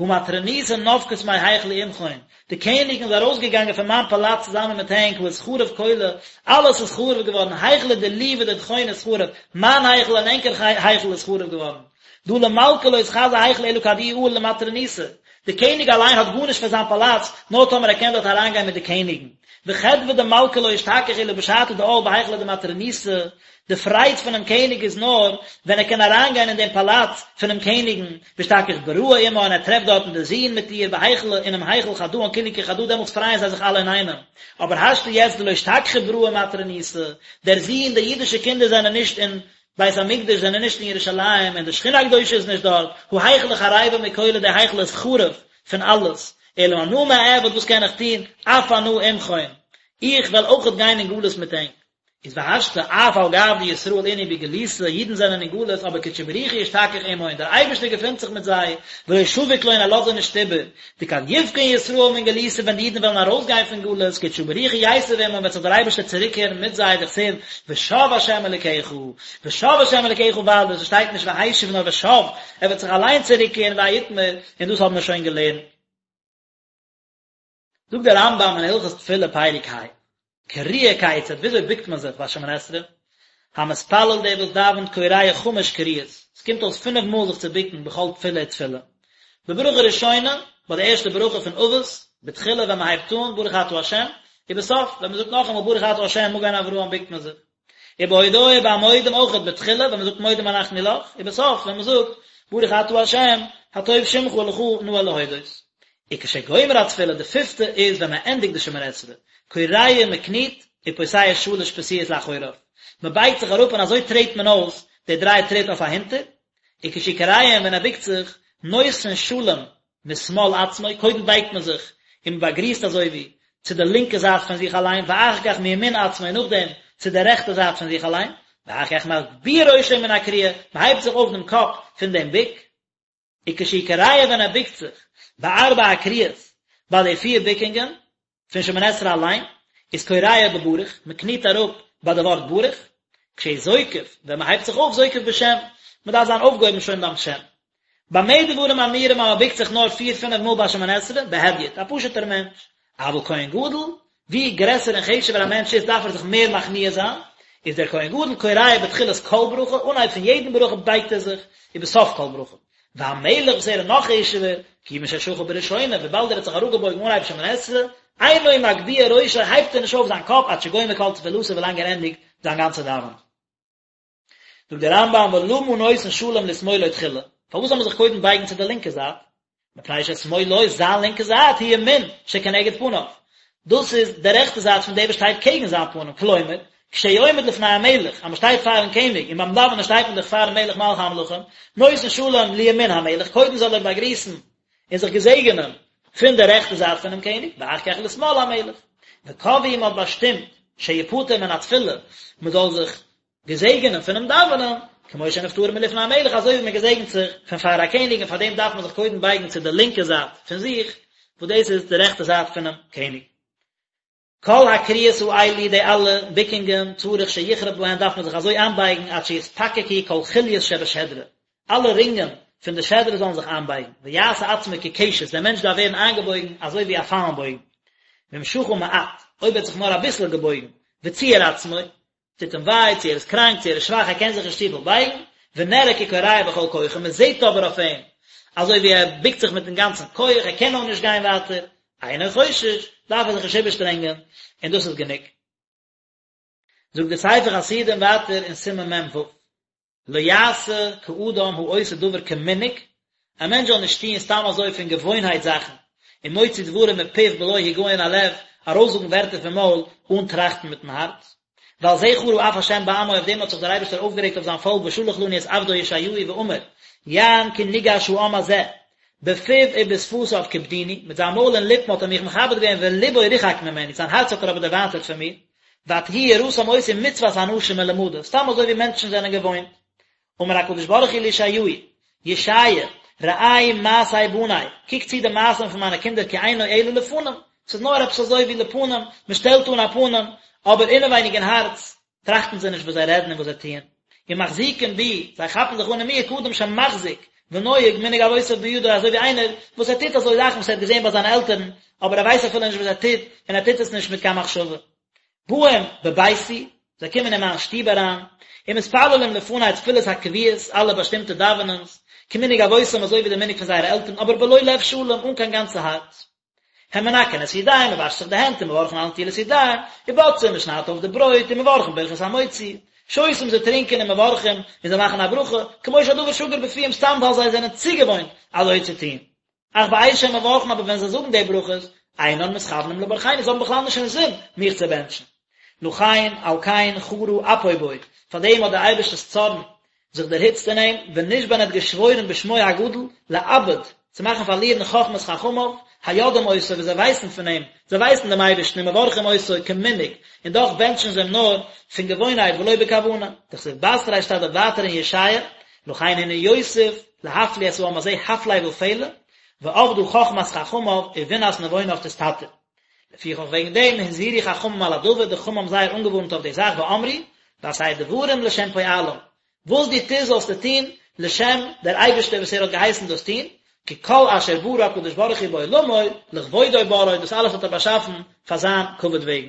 הא מטרוניתא נפקת מהיכלא עמכון, די קעניגן איז ארויסגעגאנגען פון מיין פאלאץ צוזאמען מיט ענק, הא אתחרב כולא, אלעס איז חרוב געווארן, היכלא דילי ודידכון אתחרב, מיין היכל און ענקער היכל איז חרוב געווארן. דהא למלכא לא אתחזי היכלא אלא כד איהו עאל למטרוניתא, די קעניג אליין האט גארנישט פון זיין פאלאץ, נאר טאמער ער קען דארט אריינגיין מיט די קעניגן. וחדוה דמלכא לא אשתכח אלא בשעתא דעאל בהיכלא דמטרוניתא, די פרייד פונעם קעניג איז נאר ווען ער קען אריינגיין אין דעם פאלאץ פונעם קעניגן, ואשתכח בראי עמה און ער טרעפט דארטן די זון מיט איר בהיכלא אינעם היכל חדאן כולהו כחדא דעמאלטס פרייען זיי זיך אלע אינאיינעם. אבער השתא יעצט דלא אשתכחו בראי ומטרוניתא, דער זון, די אידישע קינדער זענען נישט אין בית המקדש, זענען נישט אין ירושלים, און די שכינה הקדושה איז נישט דארט, הא היכלא חריבא מכולא די היכל איז חרוב פון אלעס, אלא אנא מה אעביד וואס קען איך טון, אף אנא עמכון, איך וועל אויכעט גיין אין גלות מיט ענק. איז והשתא אף על גב דישראל אינהו בגלותא, אידן זענען אין גלות, אבער קודשא בריך הוא אשתכח עמהון, דער אייבערשטער געפינט זיך מיט זיי, ולא שביק לון ער לאזט זיי נישט איבער, דכד יפקון ישראל מן גלותא ווען די אידן וועלן ארויסגיין פון גלות, קודשא בריך הוא ייתיב עמהון וועט זיך דער אייבערשטער צוריקקערן מיט זיי, דכתיב ושב ה' אלקיך, ושב ה' אלקיך ווייל עס שטייט נישט והשיב נאר ושב, ער וועט זיך אליין צוריקקערן והאי אתמר, און דאס האבן מיר שוין געלערנט. זאגט דער רמב"ם אין הלכות תפילה פרק ה, כריעה כיצד, וויאזוי בוקט מען זיך ביי שמונה עשרה? המתפלל דער וואס דאווענט כורע חמש כריעות, עס קומט אויס פינף מאל זיך צו בוקן בכל תפילה ותפילה. בברכה ראשונה, ביי די ערשטע ברכה פון אבות, בתחילה ווען מען הייבט אן ברוך אתה ה', ובסוף ווען מען זאגט נאכאמאל ברוך אתה ה' מגן אברהם בוקט מען זיך. ובהודאה ביי מודים אויכעט בתחילה ווען מען זאגט מודים אנחנו לך, ובסוף ווען מען זאגט ברוך אתה ה' הטוב שמך ולך נאה להודות. וכשגומר התפילה די פיפטע איז ווען מען ענדיגט די שמונה עשרה, כורע מען קניט, ופוסע שלש פסיעות לאחוריו, מען בייגט זיך אראפ און אזוי טרעט מען אויס די דריי טריט אויף אהינטער, וכשהוא כורע און ווען ער בוקט זיך, נותן שלום משמאל עצמו, קודם בייגט מען זיך און מען באגריסט אזוי ווי צו די לינקע זייט פון זיך אליין, ואחר כך מימין עצמו און נאכדעם צו די רעכטע זייט פון זיך אליין, ואחר כך מגביה ראשו מן הכריעה, מען הייבט זיך אויף דעם קאפ פון דעם בוק. וכשהוא כורע ווען ער בוקט זיך, בארבע הכריעות, ביי די פיר בוקונגען, פון שמונה עשרה אליין, איז כורע בברוך, מען קניט אראפ ביי די ווארט ברוך, כשהוא זוקף, ווען מען הייבט זיך אויף זוקף בשם, מען דארף זיין אויפגעהויבן שוין ביים שם. במה דברים אמורים אז מען בוקט זיך נאר פיר פינף מאל ביי שמונה עשרה, בהדיוט, א פשוט'ער מענטש. אבל כהן גדול, ווי גרעסער און חשוב'ער א מענטש איז דארף ער זיך מער מכניע זיין, איז דער כהן גדול כורע בתחילת כל ברכה, אנהייב פון יעדן ברכה בייגט ער זיך, ובסוף כל ברכה. והמלך וואס ער איז נאך חשוב'ער, כיוון ששחה בראשונה, וויבאלד ער האט זיך אראפגעבויגן אנהייב שמונה עשרה, אינו מגביה ראשו הייבט ער נישט אויף זיין קאפ עד שגומר כל תפילתו ווילאנג ער ענדיגט זיין גאנצע דאווענען. זאגט דער רמב"ם ולמה נותן שלום לשמאלו תחילה, פארוואס זאל מען זיך קודם בייגן צו די לינקע זייט? מפני ששמאלו, זיין לינקע זייט, היא ימין שכנגד פניו, דאס איז די רעכטע זייט פון דער וואס שטייט קעגן זיין פנים, כלומר, כשהוא עומד לפני המלך, אז מען שטייט פארן קעניג, און ביים דאווענען שטייט מען דאך פארן מלך מלכי המלכים, נותן שלום לימין המלך, קודם זאל ער באגריסן און זיך געזעגענען פון די רעכטע זייט פונעם קעניג, ואחר כך לשמאל המלך. וקבעו מען האט באשטימט שיפטר מן התפילה, מען זאל זיך געזעגענען פונעם דאווענען, כמו שנפטרין מלפני המלך, אזוי ווי מען געזעגנט זיך פון פאר א קעניג, און פאר דעם דארף מען זיך קודם בייגן צו די לינקע זייט פון זיך, וואס דאס איז די רעכטע זייט פונעם קעניג. כל הכריעות האלו, די אלע ביקונגען, צריך שיכרע בהן, דארף מען זיך אזוי איינבייגן עד שיתפקקו כל חוליות שבשדרה, אלע רינגען פון די שדרה זאלן זיך איינבייגן, ויעשה עצמו כקשת, דער מענטש דארף ווערן איינגעבויגן אזוי ווי א פיילנבויגן. ואם שחה מעט, אויב ער האט זיך נאר אביסל געבויגן, וציער עצמו, טוט אים וויי, צו ער איז קראנק, צו ער איז שוואך, ער קען זיך נישט צופיל בייגן, ונראה ככורע בכל כוחו, מען זעט אבער אויף אים אזוי ווי ער בוקט זיך מיטן גאנצן כח, ער קען נאר נישט גיין ווייטער, אינו חושש, דארף ער זיך נישט איבערשטרענגען, און דאס איז גענוג. זאגט דער ספר חסידים ווייטער אין סימן מ"ו. לא יעשה כאדם העושה דבר כמנהג, א מענטש זאל נישט טוען סתם אזוי פון געוואוינהייט זאכן, ומוציא דברים מפיו בלא הגיון הלב, ארויסזאגן ווערטער פון מויל אן טראכטן מיטן הארץ. ועל זה חרה אף השם בעמו, אויף דעם האט זיך דער אייבערשטער אויפגערעגט אויף זיין פאלק ושלח לנו את עבדו ישעיהו ואמר, יען כי ניגש העם הזה, בפיו ובשפתיו כיבדוני, מיט זיין מויל און ליפן האט ער מיך מכבד געווען ולבו רחק ממני, זיין הארץ האט ער אבער דערווייטערט פון מיר. ותהי יראתם אותי מצות אנשים מלומדה, סתם אזוי ווי מענטשן זענען געוואוינט. אמר הקדוש ברוך הוא לישעיהו, ישעיה, ראה מעשי בני, קוק צו די מעשים פון מיינע קינדער כי אינו אלא לפנים, ס'איז נאר עפעס אזוי ווי לפנים, מען שטעלט אן א פנים, אבער אינעווייניג אין הארץ טראכטן זיי נישט וואס זיי רעדן און וואס זיי טוען. ומחזיקים בי, זיי כאפן זיך אן אין מיר כאדם שמחזיק ונוהג מנהג אבותיו בידו אזוי ווי איינער וואס ער טוט אזוי זאכן וואס ער האט געזען ביי זיינע עלטערן, אבער ער ווייסט אפילו נישט וואס ער טוט, און ער טוט עס נישט מיט קיין מחשבה. באים בביתי, זיי קומען אין מיין שטוב אריין, ומתפללים לפני תפילות הקבועות, אלע באשטימטע דאווענענס, כמנהג אבותם אזוי ווי די מנהג פון זייערע עלטערן, אבער בלא לב שלם, אן קיין גאנצע הארץ. הם מנקין את ידיהם, מען וואשט זיך די הענט, ומברכין על נטילת ידיים, ובוצעים, מען שניידט אויף די ברויט, ומברכין ברכת המוציא, שותים זיי טרינקען ומברכים, און זיי מאכן א ברכה, כמו שהדבר שגור בפיהם סתם ווייל זיי זענען צוגעוואוינט אזוי צו טון. אך בעת שהם מברכין אבער ווען זיי זאגן די ברכות, אינן מתכוונים לברכני, זיי האבן בכלל נישט אינזין מיך צו בענטשן. לכן, על כן, חרה אפו בו, פאר דעם האט דער אייבערשטער'ס צארן זיך דערהיצט אין אים, ונשבע און ער האט געשוואוירן בשמו הגדול, לאבד, צו מאכן פארלירן חכמת חכמיו, היודעים אותו, וואס זיי ווייסן פון אים, זיי ווייסן דעם אייבערשטן ומברכים אותו כמנהג, און דאך בענטשן זיי אים נאר פון געוואוינהייט ולא בכוונה. דכתיב בתריה שטייט דארט ווייטער אין ישעיה, לכן הנה יוסיף להפליא את העם הזה הפלא ופלא, ואבדה חכמת חכמיו ובינת נבוניו תסתתר. לפיכך וועגן דעם הזהירו חכמים על הדבר, די חכמים האבן זייער אנגעווארנט אויף די זאך ואמרו, ועשה דברים לשם פועלם, וואס דו טוסט זאלסטו טון לשם דער אייבערשטער וואס ער האט געהייסן דאס טון, כי כל אשר ברא הקדוש ברוך הוא בעולמו, לכבודו בראו, דאס אלעס האט ער באשאפן פאר זיין כבוד וועגן.